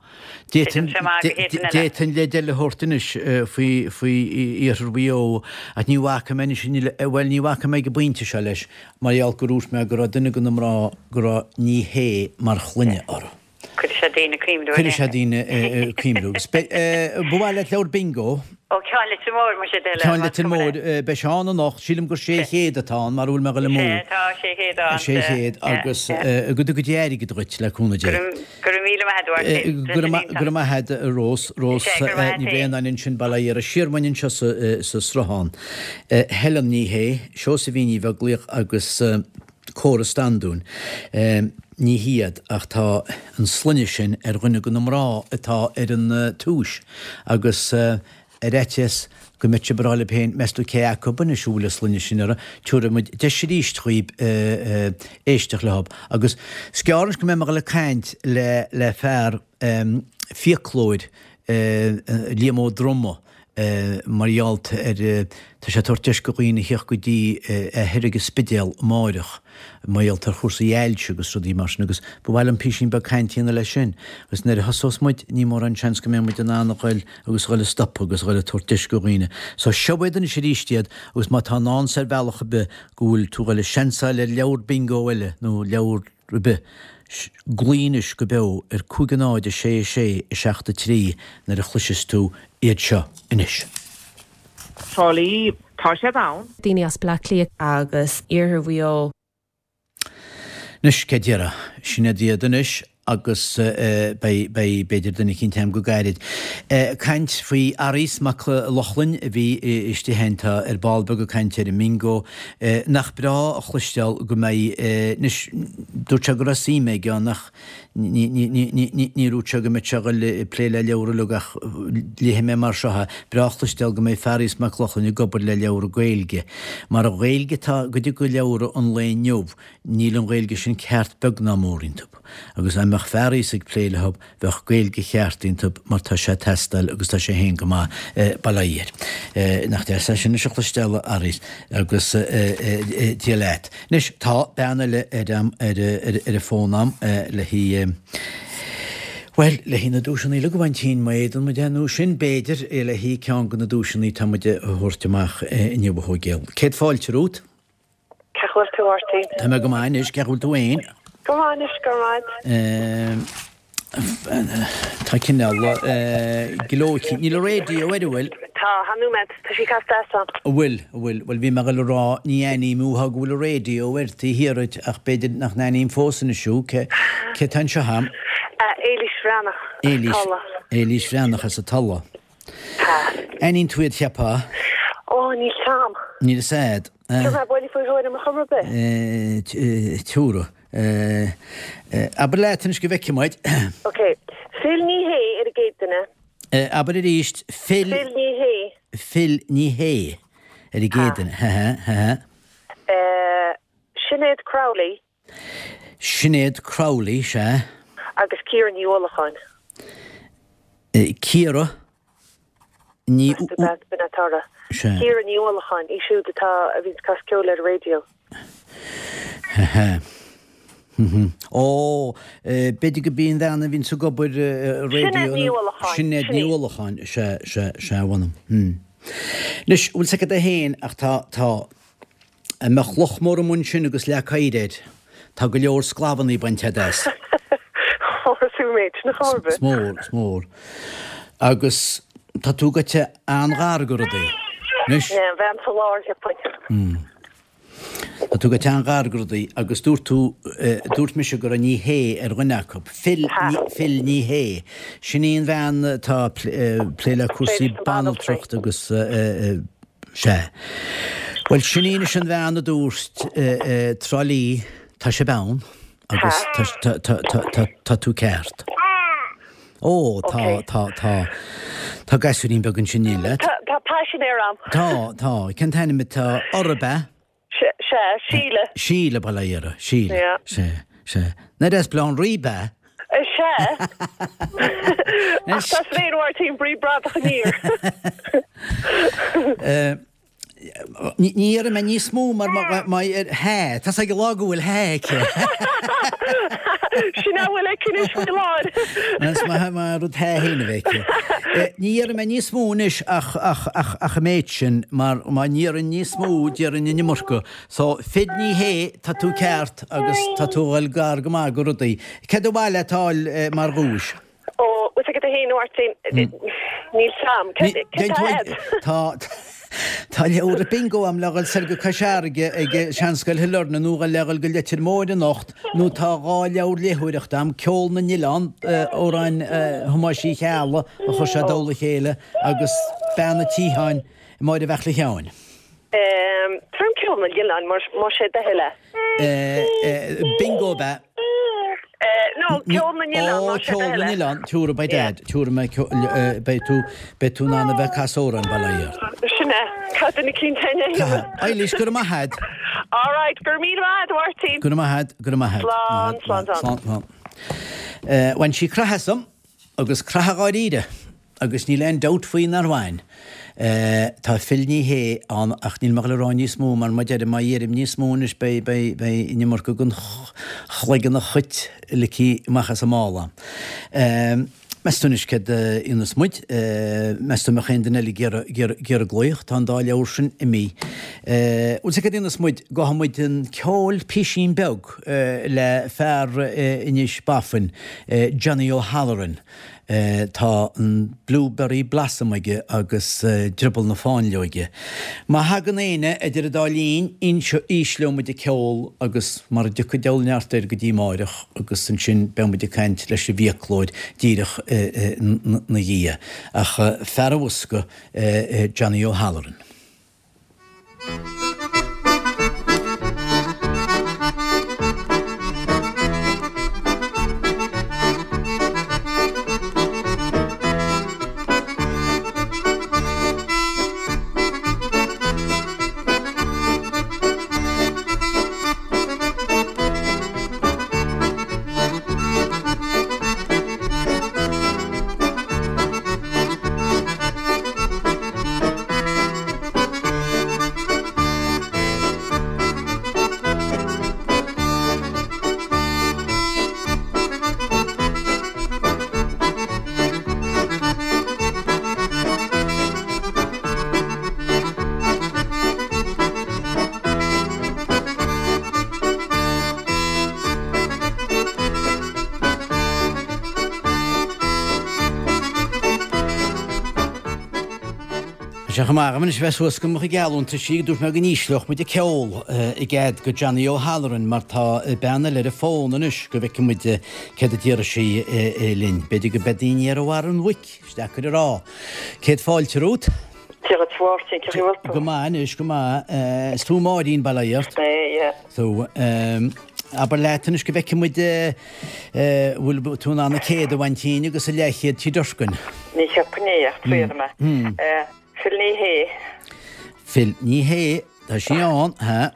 D'fhéadfainn leid eile a thabhairt anois faoi faoi Iarthar Mhaigh Eo ach ní bhacfaidh mé anois, bhuel, ní bhacfaidh mé ag an bpointe seo leis mar gheall gur dhúirt mé go raibh duine de na mná go raibh Ní Shé mar shloinne orthu. Cuirfidh sé daoine ag cuimhniú. Cuirfidh sé daoine ag cuimhniú. Agus ba mhaith leat leabhar bingo? Ó, Ceann Leitir Móir, muise, de le. Ceann Leitir Móir, beidh sé ann anocht. Sílim gur 600 atá ann, mara bhfuil mé ag dul amú. Sea, tá 600 ann. 600 agus go dtuga Dia airgead dhuit, le cúnamh Dé. Go raibh míle maith agat, a Mháirtín. Go raibh maith agat, a Rós. Rós Ní Bhraonáin ansin, Baile Átha Fhiardha. Siar uainn anseo sa Sruthán. Helen Ní Shé, Seosaimhín Ní Bheaglaoich agus. Córa Standún. Ní hiad, ach tá an sloinne sin ar dhuine de na mná atá ar an tomhas agus ar fhaitíos go mbeadh sibh ag rá libh féin, meas tú cé acu anois a bhfuil an sloinne sin orthu, tabharfaidh muid deis arís dhaoib éisteacht leo. Agus is gearr anois go mbeidh mé ag dul ag caint le fear fiaclóir, Liam Ó Droma, mar gheall ar, tá sé ag tabhairt deis go dhaoine a theacht go dtí é thoir ag an Spidéal amáireach, mar gheall ar chúrsaí ailse agus rudaí mar sin agus ba mhaith liom písín beag cainte a dhéanamh leis sin agus nuair a thosós muid ní mórán seans go mbeidh muid in ann a ghoil agus a ghoil ag stopadh agus a ghoil ag tabhairt deis go dhaoine. So seo iad anois arís iad agus má tá i ndán 's ar bhealach ar bith go bhfuil tú ag goil ag seansáil ar leabhar bingo eile nó leabhar ar bith. Glaoigh anois go beo ar 5 0 6 6 7 3 nuair a chloisfeas tú iad seo anois. Trá Lí, tá siad ann. Daoine as Bleá Cliath. Agus Iarthar Mhaigh Eo. Anois, cé déarfá? Sin iad iad anois agus beidh, beidh, b'fhéidir duine eicínt a'm go gairid. Caint faoi Fhearghas Mac Lochlainn a bhí istigh ann, tá ar ball beag ag caint ar an mbingo. Nach breá a chloisteáil go mbeidh, anois, dúirt sé go raibh suim aige ann ach ní, ní, ní, ní, ní, ní dúirt sé go mbeadh sé ag dul ag plé le leabhra uilig ach léifidh mé mar seo é, breá a chloisteáil go mbeidh Fearghas Mac Lochlainn ag obair le leabhra Gaeilge. Mar an Ghaeilge atá i gcuid de leabhra an lae inniu, níl an Ghaeilge sin ceart beag ná mór iontu. Agus dá mbeadh Fearghas ag plé leo, Bheadh Gaeilge cheart iontu mar tá sé ag teastáil agus tá sé féin go maith, bail ó Dhia air. Nach deas é sin anois a chloisteáil a Fhearghais agus Dia leat. Anois tá bean eile ar an ar an bhfón a'm le haghaidh, bhuel, le haghaidh na duaiseanna uilig a bhaint má fhéadann muid é nó sin b'fhéidir le haghaidh ceann de na duaiseanna atá muid a thabhairt amach inniu a Thóigéal. Céad fáilte romhat. Cén chaoi a bhfuil tú, a Mháirtín? Tá mé go maith anois, cén chaoi a bhfuil tú fhéin? Go maith anois, go raibh maith. Tá cineál gleoite. Níl an raidió air, an bhfuil? Tá, tá nóiméad, tá sí casta as ann. An bhfuil, an bhfuil. Bhuel, bhí mé ag dul a rá, ní aithním thú, go bhfuil an raidió air taobh thiar duit, ach b'fhéidir nach n-aithním fós anois thú. Cé, cé tá anseo a'm? Éilís Bhreathnach, as Éilís, Tulla. Éilís Bhreathnach as an Tulla. Tá. Aithníonn tú iad, cheapfá? Ó, níl 's a'm. Níl 'fhios a'd. Tabharfaidh mé buille faoi thuairim ar chuma ar bith. Tabharfaidh. Abair leat anois go bhfeicfidh muid. Ok. Phil Ní Shé ar an gcéad duine. Abair arís. Phil. Phil Ní Shé. Phil Ní Shé ar an gcéad duine. Ha ha ha. Sinéad Crowley. Sinéad Crowley, sea. Agus Ciara Ní Uallacháin. Ciara Ní. Sea. Ciara Ní Uallacháin, í siúd atá, a bhíonns ag casadh ceoil ar an raidió. Ha. Ó, b'fhéidir go b'í an bhean a bhíonns ag obair raidió. Sinéad Ní Uallacháin. Sinéad Ní Uallacháin, sea, sea, sea, a mh'anam. Anois, bhfuil 's agat é féin ach tá, tá, Dá mbeadh loch mór amuigh ansin agus leac oighir air, tá go leor sclamhannaí bainte a'd as. Mór an méid sin ar chor ar bith. Is mór, is mór. Agus tá tú goite an-ghar go rudaí. Anois. An bhean sa lár, cheapfainn. Tá tú goite an-ghar go rudaí agus dúirt tú, dúirt mise go raibh Ní Shé ar dhuine acu. Phil, Phil Ní Shé. Sin í an bhean atá ag plé le cúrsaí banaltrachta agus. Sea. Bhuel, sin í anois an bhean a dúirt Trá Lí, tá sibh ann agus tá tú ceart. Ó, tá, tá, tá, tá gasúirín beag ansin in éindí leat. Tá paisinéir a'm. Tá, tá. Cén t-ainm atá orthu, ab ea? Sea, Síle. Síle, bail ó Dhia uirthi. Síle. Yeah. Sea, sea. Nach deas Baile Átha an Rí, ab ea? Sea. Ach tá féin Mháirtín brí bradach aniar. Ní dhéarfaidh mé níos mó mar má hea, tá 's ag an lá go bhfuil hea aici. Sin a bhfuil aici anois faoi láthair. Is maith mar rud hea féin a bheith aici. Ní dhéarfaidh mé níos mó anois ach ach an méid sin mar má ndéarfainn níos mó déarfainn an iomarca. So, Phil Ní Shé, tá tú ceart agus tá tú a dhul gar go maith go rudaí. Céard ba mhaith leat a fháil mar dhuais? Ó, bhfuil 's agat fhéin a Mháirtín, níl 's a'm. Céard tá a'd? Tá Tá leabhar bingo a'm le dhul soir go Cois Fharraige ag Seanscoil Shailearna nó le dhul go Leitir Móir anocht nó tá 2 leabhar léitheoireachta a'm, Ceol na nOileán, amhráin Thomáis Uí Cheallaigh a chuir sé i dtoll a chéile agus Bean a' tSiotháin, Máire Bheartla Sheáin. Tabhair dom Ceol na nOileán más é do thoil é. Bingo ab ea? No, Ceol na nOileán, más é do thoil é. Ceol na nOileán, tabharfaidh beidh Dad, tabharfaidh mé, beidh tú, beidh tú in ann a bheith ag casadh amhráin, bail ó Dhia ort. Sin é, caithfidh duine eicínt é a dhéanamh. Eilís, go raibh maith a'd. All right, go raibh míle maith a'd, a Mháirtín. Go raibh maith a'd, go raibh maith a'd. Slán, slán, slán. Slán, slán. Bhain sí croitheadh asam, agus croitheadh dháiríre. Agus níl aon dabht faoi nár bhain. Tá Phil Ní Shé ann ach níl mé ag dul a rá níos mó mar má deirim, má dheirim níos mó anois beidh, beidh, beidh an iomarca den chloigeann an chait ligthe amach as an mála. Meas tú anois céard a dhéanfas muid? Meas tú an mbeadh aon duine eile ag iarraidh, ag iarraidh, ag iarraidh glaoch? Tá an dá leabhar sin imithe. Bhuel, céard a dhéanfas muid? Gabhfaidh muid chun ceoil písín beag le fear Inis Bafain, Johnny O'Halloran. Tá an Blueberry Blossom aige agus Drioball na Fáinleoige. Má thagann éinne idir an dá linn, ísleoidh muid an ceol agus mara dtiocfaidh deabhal neart air go dtí amáireach agus ansin beidh muid ag caint leis an bhfiaclóir díreach ina dhiaidh. Ach fear an bhosca, Johnny O'Halloran. Tá sé chomh maith agam anois bheith suas go mo chuid geallúntaisí, dúirt mé go n-ísleodh muid an ceol i gcead go Johnny O'Halloran mar tá bean eile ar an bhfón anois go bhfeicfidh muid céard a déarfaidh sí linn. B'fhéidir go beidh daoine ar bharr an bhoic, is deacair a rá. Céad fáilte romhat. Dia dhuit a Mháirtín, cén chaoi a bhfuil tú? Go maith anois, go maith. Is tú Máirín, bail ó Dhia ort. Is mé, yeah. So, abair leat anois go bhfeicfidh muid bhfuil tú in ann an céad a bhaint dínn agus an leathchéad Tigh Durkin. Ní cheapfainn é ach triailfidh mé. Phil Ní Shé. Phil Ní Shé, tá sí ann, ha.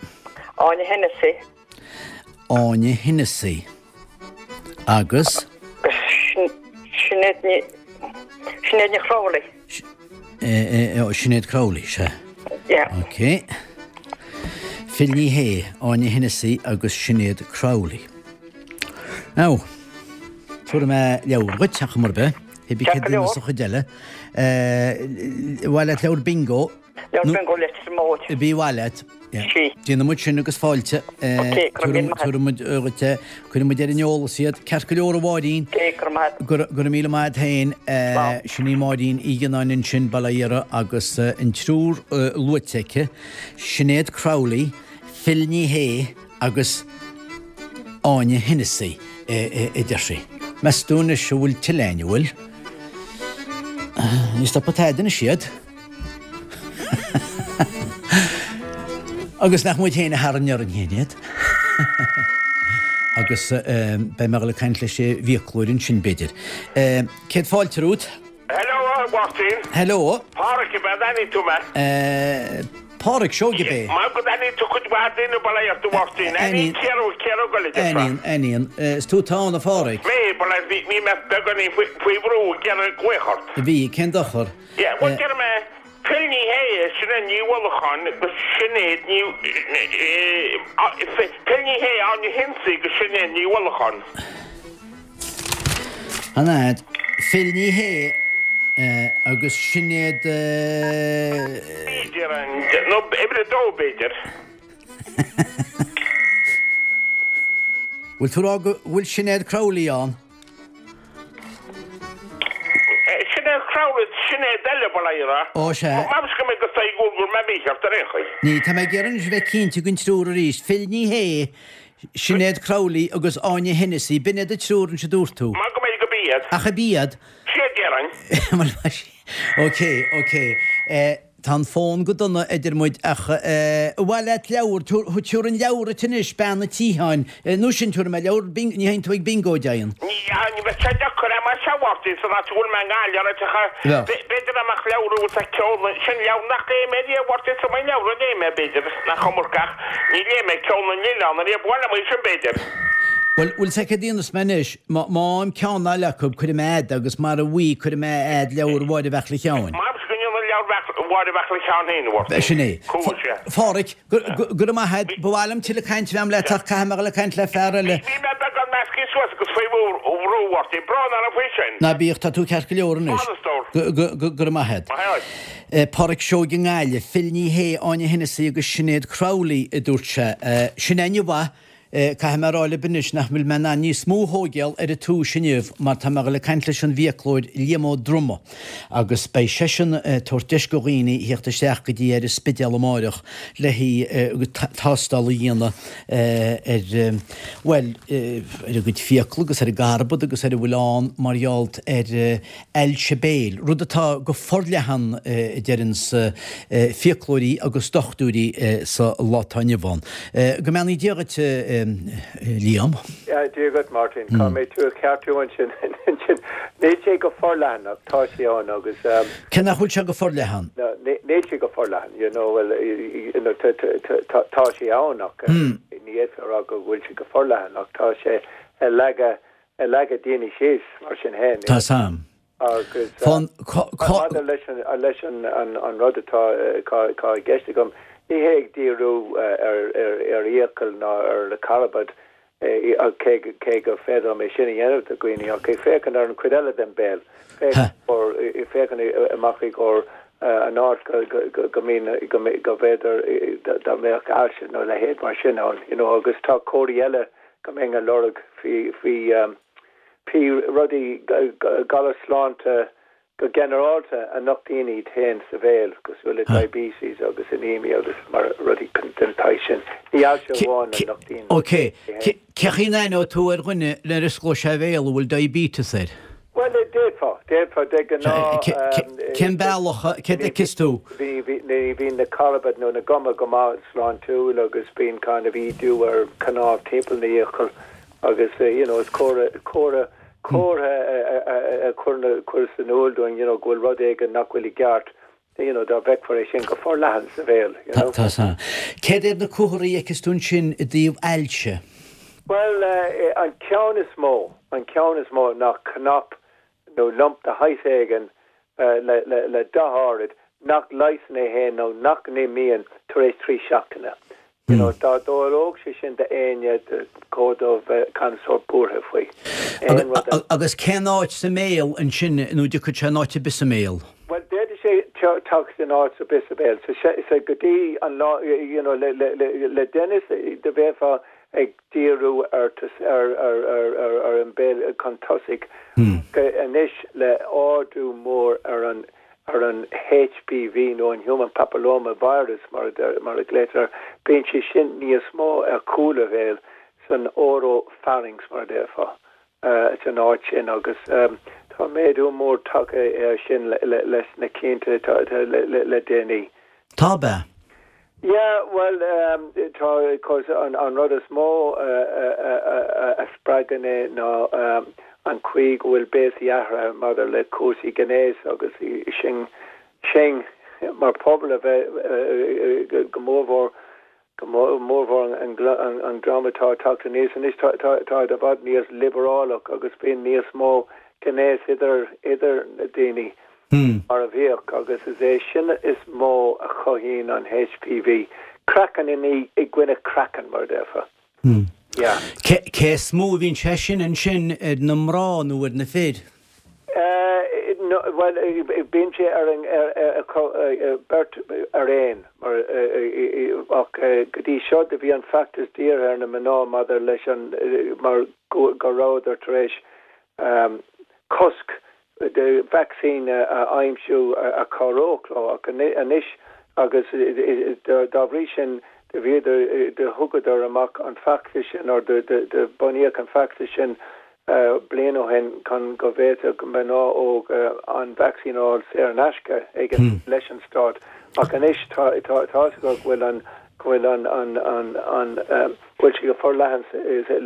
Áine Hennessy. Áine Hennessy. Agus? Sinéad Ní Sinéad Ní Chrowley. Sinéad Crowley, sea. Yeah. Ok. Phil Ní Shé, Áine Hennessy agus Sinéad Crowley. Now, tabharfaidh mé leabhar dhuit, ach mar bith, hibí Ceart céad go leor. sa chuid eile. Mhaith leat leabhar bingo? Leabhar bingo Leitir Móir. Bí mhaith leat. Sí. Déanfaidh muid sin agus fáilte. Ok, go raibh míle maith. Tabharfaidh muid dhuit é. Cuirfidh muid ar an eolas iad. Ceart go leor a Mháirín. Ok, go raibh maith. Go raibh míle maith agat féin. Slán. Sin í Máirín Uí Ghionnáin ansin, Baile Iara, agus an triúr luaite aici, Sinéad Crowley, Phil Ní Shé agus Áine Hennessy, a deir sí. Meas tú anois an bhfuil tuilleadh againn, an bhfuil? Ní stopfaidh tada anois iad. Agus nach muid féin a tharraing orainn féin iad. Agus beidh mé ag dul ag caint leis an bhfiaclóir ansin, b'fhéidir. Céad fáilte romhat. Hello, a Mháirtín. Hello. Páraic ab ea, an aithníonn tú mé? Páraic Seoige ab é? Mar go n-aithníonn tú cuid mhaith daoine bail ó Dhia ort, a Mháirtín. Aithníonn Ciara, Ciara Ó Goill a déarfá. Aithníonn, aithníonn. Is tú atá ann, a Pháraic? Mé, bail ó Dhia, bhí mé beagáinín faoi bhrú ag iarraidh glaoch ort. Bhí, cén dochar? Yeah, bhuel, déarfaidh mé, Phil Ní Sheaghdha, Sinéad Ní Uallacháin agus Sinéad Ní Phil Ní Sheaghdha, Áine Hennessy agus Sinéad Ní Uallacháin. An fhad, Phil Ní Sheaghdha agus Sinéad. B'fhéidir, nó uimhir a dó b'fhéidir. Bhfuil tú ag rá go bhfuil Sinéad Crowley ann? Sinéad Crowley, Sinéad eile, bail ó Dhia. Ó, sea. Meas go mbeidh go saigh go bhfuil mé mícheart ar aon chaoi. Ní, tá mé ag iarraidh anois a bheith cinnte den triúr arís. Phil Ní Sheaghdha, Sinéad Crowley agus Áine Hennessy, b'in iad an triúr anois a dúirt tú. Mar go mbeidh go b'iad. Ach ab iad? Sea, déarfainn. Bhuel, ok, ok. Tá an fón go dona idir muid ach ar mhaith leat leabhar, tabharfaidh an leabhar duit anois, Bean an tSiotháin, nó sin tabharfaidh mé leabhar bingo, ní théann tú ag bingo, deimhin. Ní, ní bheadh sé deacair é mar sea, a Mháirtín, san áit a bhfuil mé i nGaillimh, ar áiteacha, b'fhéidir dá mbeadh leabhar a bhfuil sa ceol, sin leabhar nach léigh mé riamh, a Mháirtín, is iomaí leabhar a léigh mé, b'fhéidir, nach iomarca ach ní léigh mé Ceol na nOileán ariamh, ba mhaith liom é sin, b'fhéidir. Bhuel, bhfuil 's agat céard a dhéanfas mé anois, má fhaighim ceann eile acu, cuirfidh mé a'd agus mara bhfaighidh, cuirfidh mé a'd leabhar Mháire Bheartla Sheáin. Measaim go ndéanfaidh leabhar Mháire Bheartla Sheáin féin, a Mháirtín. Sin é. Cool, sea. Pháraic, go raibh maith a'd. Ba mhaith liom tuilleadh cainte a bheith a'm leat ach caithfidh mé dhul ag caint le fear eile. Bhí mé beagán measctha suas agus faoi bhrú, a Mháirtín. Brón orm faoi sin. Ná bíodh, tá tú ceart go leor anois. Slán, a stór. Go raibh maith a'd. Maith a'd. Páraic Seoige i nGaillimh, Phil Ní Sheaghdha, Áine Hennessy agus Sinéad Crowley, a dúirt sé. Sin aithne mhaith. Caithfidh mé a rá libh anois nach bhfuil mé in ann níos mó a thóigeáil ar an tomhais inniu mar tá mé ag dul ag caint leis an bhfiaclóir Liam Ó Droma agus beidh seisean ag tabhairt deis go dhaoine theacht isteach go dtí ar an Spidéal amáireach le haghaidh tástáil a dhéanamh ar, bhuel, ar a gcuid fiacla agus ar a gcarbad agus ar a bhfuil ann mar gheall ar ailse béil, rud atá go forleathan a deireanns fiaclóirí agus dochtúirí sa lá atá inniu ann. Go mbeannaí Dia dhuit, a Liam. Dia dhuit, Martin. Caithfidh mé tú a cheartú ansin. Níl sé go forleathan ach tá sé ann agus. Cé nach bhfuil sé go forleathan? Níl sé go forleathan, you know, well, you know, tá sé ann ach ní fhéadfá a rá go bhfuil sé go forleathan ach tá sé ag leagadh ag leagadh daoine síos mar sin féin. Tá sam. Agus maidir leis an leis an an rud atá atá i gceist agam, ní hé ag díriú ar ar fhiacail ná ar na carbad, cé cé go féidir liom é sin a dhéanamh do dhaoine, ach ag féachaint ar an chuid eile den bhéal, féachaint amach i gcomhair an áit go go go mbíonn go go bhféidir dá mbeadh ailse nó a leithéid mar sin ann, you know, agus tá comharthaí eile go mbeinn ag lorg faoi faoi rudaí galar sláinte go ginearálta a nochtaíonn iad féin sa bhéal, cosúil le diabetes agus anemia agus mar rudaí den tsaghas sin. Ní ailse amháin a nochtaíonn Ok. é féin. Cé chaoi a n-aithneoidh tú ar dhuine nuair a osclóidh sé a bhéal a bhfuil diabetes air? Bhuel, d'fhéadfá, d'fhéadfá, de ghnáth. Cén bealach, céard a fheiceas tú? Ní bhíonn na carbaid nó na guma go maith sláintiúil agus bíonn kind of ídiú ar cnámh timpeall na fhiacal agus you know is comhartha, comhartha, comhartha a chuireas in iúl dúinn you know go bhfuil rud éigin nach bhfuil i gceart you know dá bhfeicfear é sin go forleathan sa bhéal you know. Tá, tá. Céard iad na comharthaí a fheiceas tú ansin i dtaobh ailse? Bhuel, an ceann is mó, an ceann is mó ná cnap nó lump de shaghas éigin le dath áirid nach leigheasann é féin nó nach n-imíonn tar éis 3 seachtaine. You know, dá dtarlódh sé sin d'éinne, chóir dóibh bheith kind of sórt buartha faoi. Aon rud eile. Agus cén áit sa mbéal ansin nó dtiocfadh sé in áit ar bith sa mbéal? Bhuel, d'fhéadfadh sé teacht in áit ar bith sa bhéal. So, so go dtí an lá, you know, le, le, le, le deireanas, do bheifeá ag díriú ar ar an mbéal chun tosaigh anois le ardú mór ar an ar an HPV nó an Human Papilloma Virus mar mar a ghlaotar air, bíonn sé sin níos mó ar chúl an bhéil san oropharynx mar a déarfá san áit sin agus tá méadú mór tagtha air sin leis na cianta le déanaí. Tá, ab ea? Yeah, bhuel, tá, course, an rud is mó a spreagann é ná an chaoi go bhfuil béasaí athraithe maidir le cúrsaí gnéis agus sinn, sinn mar phobal a bheith go mórmhór, go mórmhór an dream atá ag teacht aníos anois, tá, táid i bhfad níos liobrálach agus bíonn níos mó gnéas idir, idir na daoine mar a bhíodh agus is é sin is mó a chothaíonn an HPV. Craiceann i gcoinne craiceann, mar a déarfá. Yeah. Cé is mó a bhíonn sé sin ansin, ar na mná nó ar na fir? Bhuel, bíonn sé ar an beirt ar aon, mar, ach go dtí seo do bhí an feachtas dírithe ar na mná maidir leis an, mar go rabhadar tar éis cosc de vacsaín a aimsiú a chabhródh leo ach anois agus dá bhrí sin do bhíodar, do thugadar amach an feachtas sin or do bunaíodh an feachtas sin bliain ó shin chun go bhféadfadh mná óga an vacsaín a fháil saor in aisce ag an, leis an stát ach anois tá tá a fhios acu go bhfuil an, go bhfuil an, an, an, an, go bhfuil sé go forleathan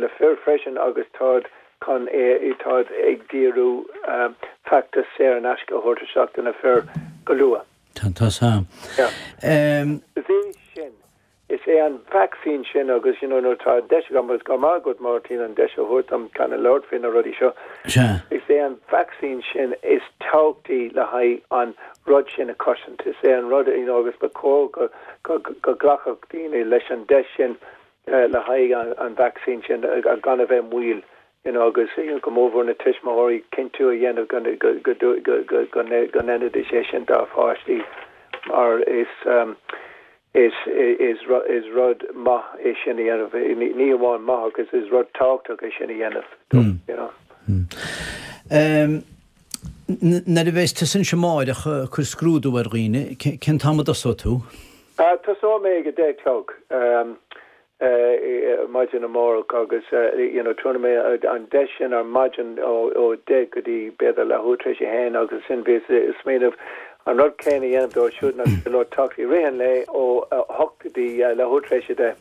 le fir freisin agus táid chun é, táid ag díriú feachtas saor in aisce a thabhairt isteach do na fir go luath. Tá, tá san. Yeah. Is é sin, is é an vacsaín sin agus, you know, nuair atá an deis agam, agus go raibh maith agat Máirtín an deis a thabhairt dom kind of labhairt faoi na rudaí seo, Sea. is é an vacsaín sin is tábhachtaí le haghaidh an rud sin a chosaint. Is é an rud, you know, agus ba chóir go, go, go nglacfadh daoine leis an deis sin le haghaidh an vacsaín sin gan a bheith moill you know agus go mórmhór na tuismitheoirí cinntiú a dhéanamh go go ndéanfaidís é sin dá pháistí mar is is is is rud maith é sin a dhéanamh ní amháin maith ach is is rud tábhachtach é sin a dhéanamh you know. Nuair a bheas tusa ansin amáireach ag cur scrúdú ar dhaoine, cén t-am a dtosóidh tú? Tosóidh mé ag a 10 a chlog maidin amárach agus you know tabharfaidh mé an deis sin ar maidin ó 10 go dtí b'fhéidir leathuair tar éis a haon agus ansin bhíos ag smaoineamh an rud céanna a dhéanamh dóibh siúd nach féidir leo teacht i rith an lae ó 8 go dtí leathuair tar éis a 10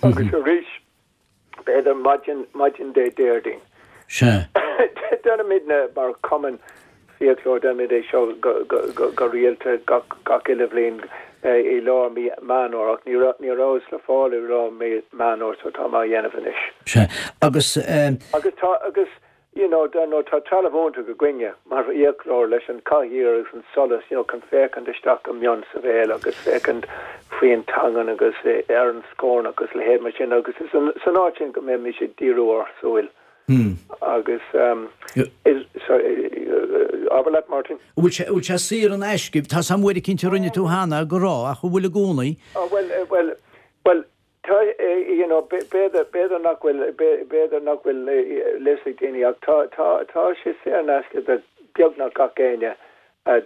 agus arís B'fhéidir maidin, maidin Dé Déardaoin. Sea. Déanaimidne mar chumann fiaclóir, déanaimid é seo go, go, go, go rialta gach, gach uile bhliain i lár mí Meán Fhómhair ach ní raibh, ní rabhas le fáil i lár mí Meán Fhómhair so tá mé á dhéanamh anois. Sea. Agus eh. Agus tá, agus You know, dar ndóigh, tá trealamh iontach againne mar fhiaclóir leis an chathaoir agus an solas, you know, chun féachaint isteach go mion sa bhéal agus féachaint faoin teangain agus ar an scornach agus a leithéid mar sin agus is san áit sin go mbeimis ag díriú ár súil agus is, sorry, abair leat, Martin. An bhfuil sé, an bhfuil sé saor in aisce? Tá 's a'm uair eicínt a rinne tú cheana go raibh ach an bhfuil i gcónaí? Oh, bhuel, bhuel, bhuel, Tá, you know, b'fhéidir, b'fhéidir nach bhfuil, b'fhéidir nach bhfuil fhios ag daoine ach tá, tá, tá sé saor in aisce do beagnach gach éinne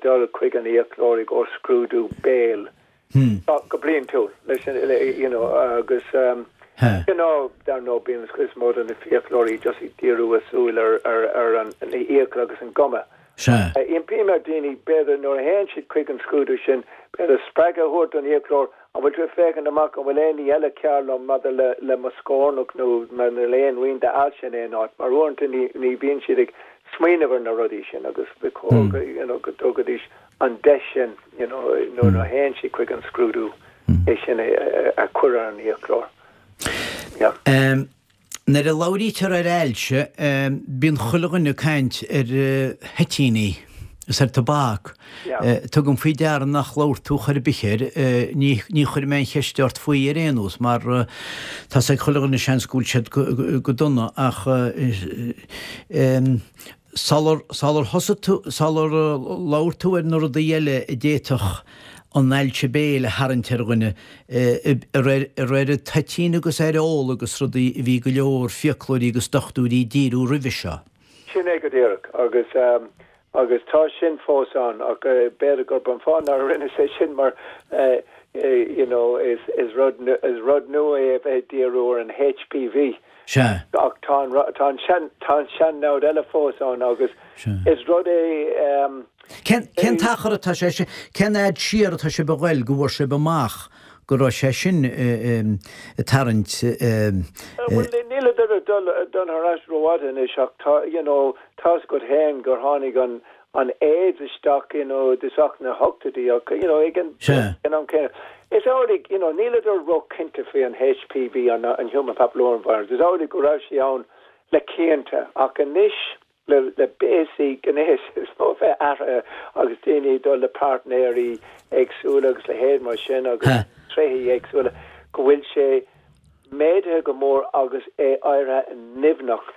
dul chuig an fhiaclóir i gcomhair scrúdú béil go bliantúil leis an, you know, agus you know, dar ndóigh bíonn an chuid is mó de na fiaclóirí just ag díriú a súil ar, ar, ar an fhiacail agus an guma. Sea. Impím ar daoine, b'fhéidir, nuair a théann siad chuig an scrúdú sin, b'fhéidir spreagadh a thabhairt don fhiaclóir, An bhfuil tú ag féachaint amach an bhfuil aon ní eile cearr liom maidir le le mo scornach nó maidir le aon rian d'ailse in aon áit? Mar uaireanta ní ní bhíonn siad ag smaoineamh ar na rudaí sin agus ba chóir go you know go dtugaidís an deis sin you know nuair a théann siad chuig an scrúdú é sin a a chur ar an fhiaclóir. Yeah. Nuair a labhraítear ar ailse, bíonn chuile dhuine ag caint ar thoitíní is ar tobac. Tugaim faoi deara nach labhair tú chor ar bith air, ní chuirfidh mé aon cheist ort faoi ar aon nós mar tá's ag chuile dhuine seans go bhfuil siad go dona ach Sular, sular thosaigh tú, sular labhair tú ar na rudaí eile a d'fhéadfadh an ailse béil a tharraingt ar dhuine, ar ar toitín agus ar ól agus rudaí a bhí go leor fiaclóirí agus dochtúirí ag díriú roimhe seo. Sin é go díreach agus, agus tá sin fós ann ach b'fhéidir gurb an fáth nár rinneas é sin mar you know is, is rud, is rud nua é a bheith ag díriú ar an HPV. Sea. Ach tá an, tá an sean, tá an sean-namhaid eile fós ann agus is rud é. Cén, cén t-achar atá sé, cén fhad siar atá sibh a ghoil go bhfuair sibh amach? go raibh sé sin ag tarraingt. Bhuel, níleadar ag dul thar ais rófhada anois ach tá, you know, tá's agat féin gur tháinig an an AIDS isteach, you know, i dtosach na hochtóidí ach, you know, ag an am céanna, is amhlaidh, you know, níleadar róchinnte faoi an HPV, an an Human Papilloma Virus, is amhlaidh go raibh sé ann le cianta ach anois le le béasaí gnéis is mó a bheith athraithe agus daoine ag dul le páirtnéirí éagsúla agus leithéid mar sin agus tréithí éagsúla go bhfuil sé méadaithe go mór agus é éirithe nimhneach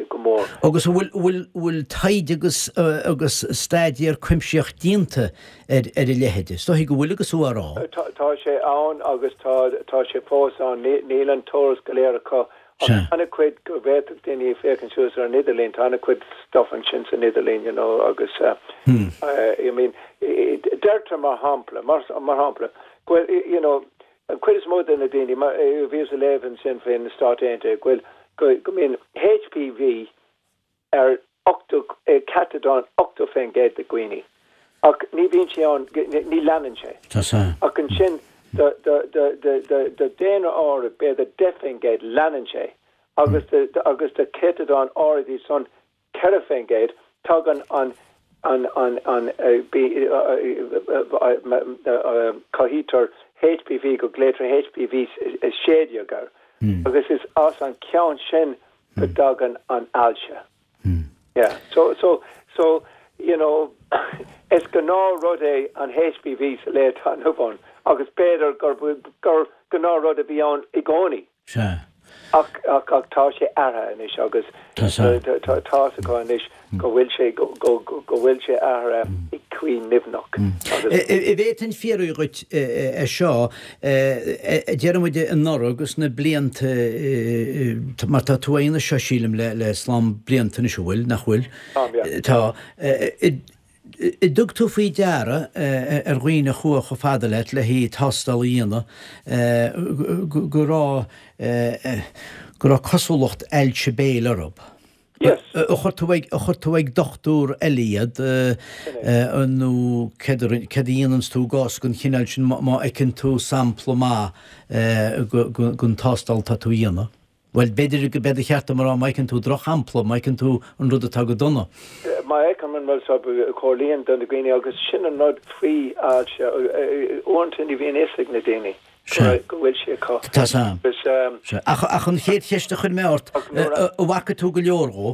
go mór. Agus an bhfuil, bhfuil, bhfuil taighde agus, agus staidéar cuimsitheach déanta ar, ar a leithéid? Is dóichí go bhfuil agus tú á rá. Tá, tá sé ann agus tá, tá sé fós ann. Níl an t-eolas go léir acu ach tá an-chuid go bhféadfadh daoine féachaint suas ar an idirlíon, tá an-chuid stuff ansin san idirlíon, you know, agus I mean, deirtear mar shampla, mar, mar shampla, go bhfuil, you know, An chuid is mó de na daoine, mar bhíos ag léamh ansin faoi na Stáit Aontaithe, go bhfuil, go mbíonn HPV ar 80, céatadán 80% de dhaoine, ach ní bhíonn sé ann, ní leanann sé. Ach ansin do, do, do, do, do, do daonra áirid, b'fhéidir 10%, leanann sé, agus do, agus do chéatadán áirid iad san, 4%, tagann an an an an cothaítear HPV go glaoitear HPV 16 air agus is as an ceann sin go dtagann an ailse. Yeah. So so so you know is gnáth rud é an HPV sa lá atá inniu ann agus b'fhéidir gur gur gnáth rud a bhí ann i gcónaí. Sea. Ach, ach, ach tá sé athraithe anois agus tá's acu anois go bhfuil sé, go, go, go bhfuil sé athraithe i gcaoi nimhneach agus. An bhféadfainn fiafraí dhuit é seo, déarfaidh muid anuraidh agus na blianta, mar tá tú á dhéanamh seo sílim le, le slám blianta anois, an bhfuil, nach bhfuil? Táim, yeah. Tá. An dtug tú faoi deara ar dhaoine a chuaigh chomh fada leat le haghaidh tástáil a dhéanamh go raibh go raibh cosúlacht ailse béil orthu? Yes. Ar chuir tú ag ar chuir tú ag dochtúir eile iad nó céard a céard a dhéananns tú i gcás den chineál sin má fheiceann tú sampla maith den tástáil atá tú a dhéanamh? Bhuel, b'fhéidir go b'é ba cheart dom a rá, má fheiceann tú drochshampla, má fheiceann tú an rud atá go dona. Má fheicim an rud seo, comhairlím do na daoine agus sin an rud faoi ailse, uaireanta ní bhíonn fhios ag na daoine go bhfuil sé acu. Tá 's a'm. Ach an chéad cheist a chuir mé ort, an bhfaca tú go leor dhó?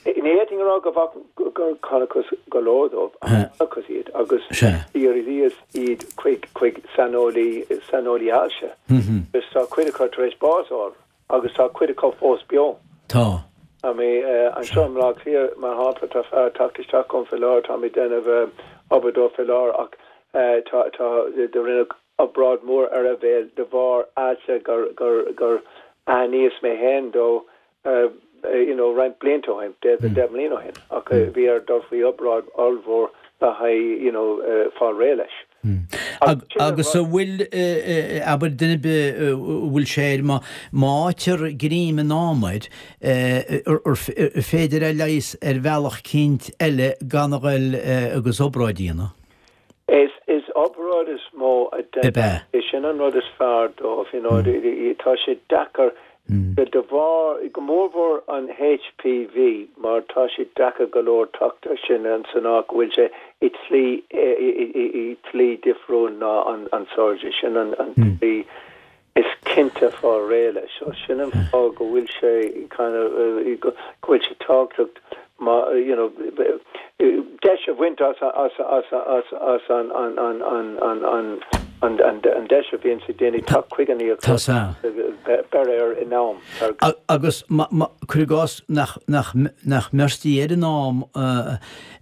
Ní fhéadfainn a rá go bhfaca, gur chonacthas go leor dóibh, ach chonacthas iad agus dhíríos iad chuig, chuig saineolaí, saineolaí ailse. Agus tá cuid acu tar éis bás a fháil agus tá cuid acu fós beo. Tá. I mean, anseo i mBleá Cliath, mar shampla, tá fear ag teacht isteach chugam faoi láthair, táim ag déanamh obair dó faoi láthair ach tá, tá, do rinneadh obráid mhór ar a bhéal de bharr ailse gur, gur, gur aithníos mé féin dó you know, roinnt blianta ó shin, b'fhéidir 10 mbliana ó shin, ach bhí air dul faoi obráid ollmhór le haghaidh, you know, fáil réidh leis. Agus an bhfuil, abair, duine ar bith a bhfuil sé air, má fhaightear greim in am air, ar féidir é a leigheas ar bhealach eicínt eile gan a ghoil agus obráid a dhéanamh? Is is obráid is mó a deineadh. É sin an rud is fearr dóibh, you know, tá sé deacair de bharr, go mórmhór an HPV mar tá sé deacair go leor teacht air sin san áit go bhfuil sé i tslí i tslí difriúil ná an surgery, sin an tslí is cinnte fáil réidh leis. So sin an fáth go bhfuil sé kind of go bhfuil sé tábhachtach má you know deis a bhaint as as as as as an an an an an an an an an deis a bhíonn ag daoine teacht chuig an íoc beir air in am. Agus cuir i gcás nach nach nach mbeirtí air in am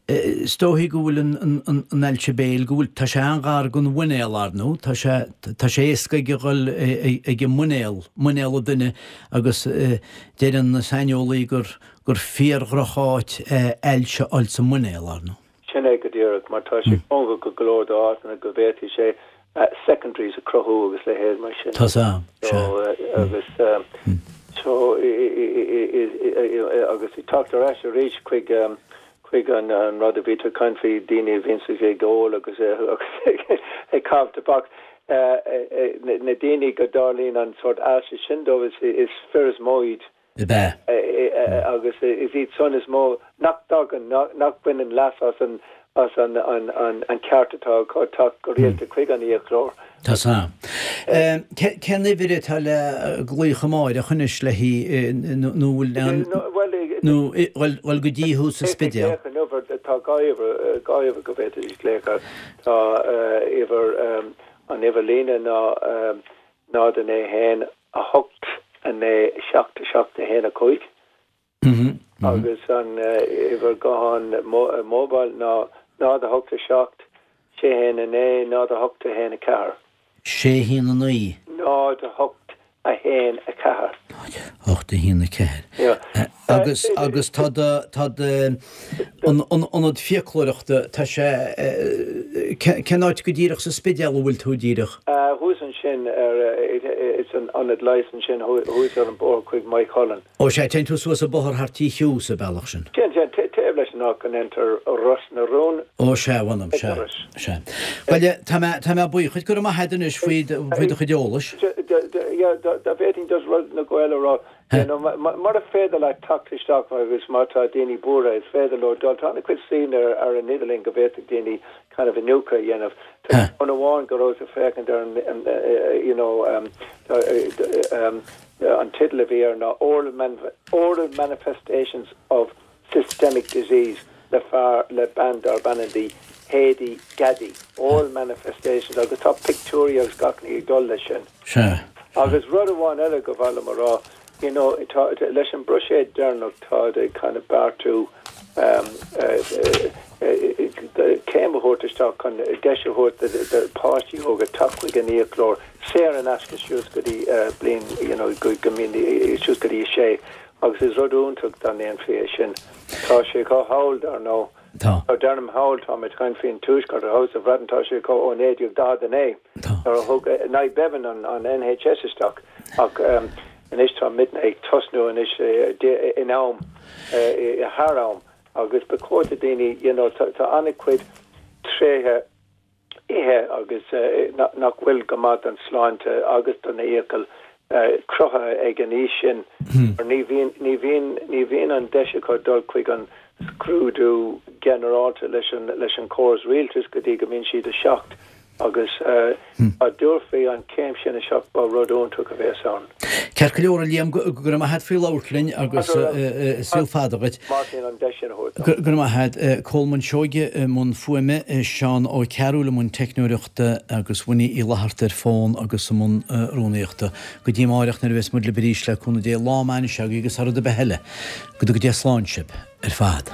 Is dóichí go bhfuil an ailse béil, go bhfuil, tá sé an-ghar don mhuinéal, ar ndóigh, tá sé, tá sé éasca ag a dhul ag an muinéal, muinéal an duine agus deireann na saineolaí gur, gur fíor-dhroch-áit é ailse a fháil sa muinéal, ar ndóigh. Sin é go díreach, mar tá sé cóngarach go leor d'áiteanna go bhféadfaidh sé secondaries a cruthú agus leithéid mar sin. Tá 's a'm, sea. Agus so, agus ag teacht ar ais arís chuig chuig an rud a bhí tú ag caint faoi, daoine a bhíonns ag ól agus ag caitheamh tobac. Na daoine go dtarlaíonn an sórt ailse sin dóibh, is fir is mó iad. Ab ea? Agus is iad san is mó nach dtagann, nach mbaineann leas as an as an an ceart atá acu teacht go rialta chuig an fhiaclóir. Tá san. Cén uimhir atá le glaoch amáireach anois le hí nó bhfuil an nó bhfuil go dtí thú sa Spidéal? Tá dhá uimhir, dhá uimhir go bhféadfaidís glaoch air. Tá uimhir, an uimhir líne ná 0 9 1 8 9 7 7 1 5 agus an uimhir gutháin mobile ná 0 8 7 6 1 9 0 8 1 4. 6 1 9. 0 8 1 4. 8 1 4. Agus, agus tá do, tá do, an, an ionad fiaclóireachta, tá sé, cén áit go díreach sa Spidéal a bhfuil tú díreach? Thuas ansin ar, it's an ionad leighis ansin thuas ar an bóthar chuig Maigh Cuilinn. Ó sea, téann tú suas an bóthar thart Tí Hugh sa bealach sin. Téann, téann, taobh leis an áit go ndeintear Ros na Rún. Ó sea, mh'anam, sea, sea. Bhuel, tá mé, tá mé buíoch duit, go raibh maith agat anois faoi do, faoi do chuid eolais. Yeah, dá bhféadfainn just rud na Gaeil a rá, you know, mura féidir leat teacht isteach agus má tá daoine buartha, is féidir leo dul, tá an-chuid suíomhanna ar an idirlíon go bhféadfadh daoine kind of iniúchadh a dhéanamh. Tá ceann amháin go rabhas ag féachaint ar an, you know, An teideal a bhí air ná Oral Oral Manifestations of Systemic Disease le fear, le bean darb ainm di Hedy Gaddy. Oral Manifestations agus tá pictiúirí agus gach ní ag dul leis sin. Sea. Agus rud amháin eile go mhaith liom a rá, you know, tá, leis an mbuiséad deireanach táid ag kind of beartú um, céim a thabhairt isteach chun deis a thabhairt do pháistí óga teacht chuig an fhiaclóir saor in aisce suas go dtí bliain, you know, go mbíonn suas go dtí a sé agus is rud iontach dá ndéanfaí é sin. Tá sé acu thall, dar ndóigh. Tá. Deirim thall, tá mé ag caint faoin Tuaisceart, thall sa Bhreatain tá sé acu ó 1949 nuair a thug Nye Bevan an NHS isteach ach anois tá muidne ag tosnú anois in am, thar am. Agus ba chóir do daoine, you know, tá an-chuid tréithe ithe agus nach bhfuil go maith don sláinte agus don fhiacail cruthaithe ag an aois sin mar ní bhíonn, ní bhíonn, ní bhíonn an deis acu dul chuig an scrúdú ginearálta leis an, leis an córas rialtais go dtí go mbíonn siad 7. Agus dá dtabharfaí an chéim sin isteach ba rud iontach a bheas ann. Ceart go leor, a Liam, go raibh maith a't faoi labhairt linn agus saol fada dhuit. Máirtín, an deis sin a thabhairt dom. Go raibh maith a't. Colmán Seoige i mbun fuaime, Seán Ó Cearúil i mbun teicneoireachta agus Winnie Uí Fhlatharta ar fón agus i mbun rúnaíochta. Go dtí amáireach nuair a bheas muid libh arís le cúnamh Dé, lá maith anois agaibh agus thar rud ar bith eile, go dtuga Dia slán sibh ar fad.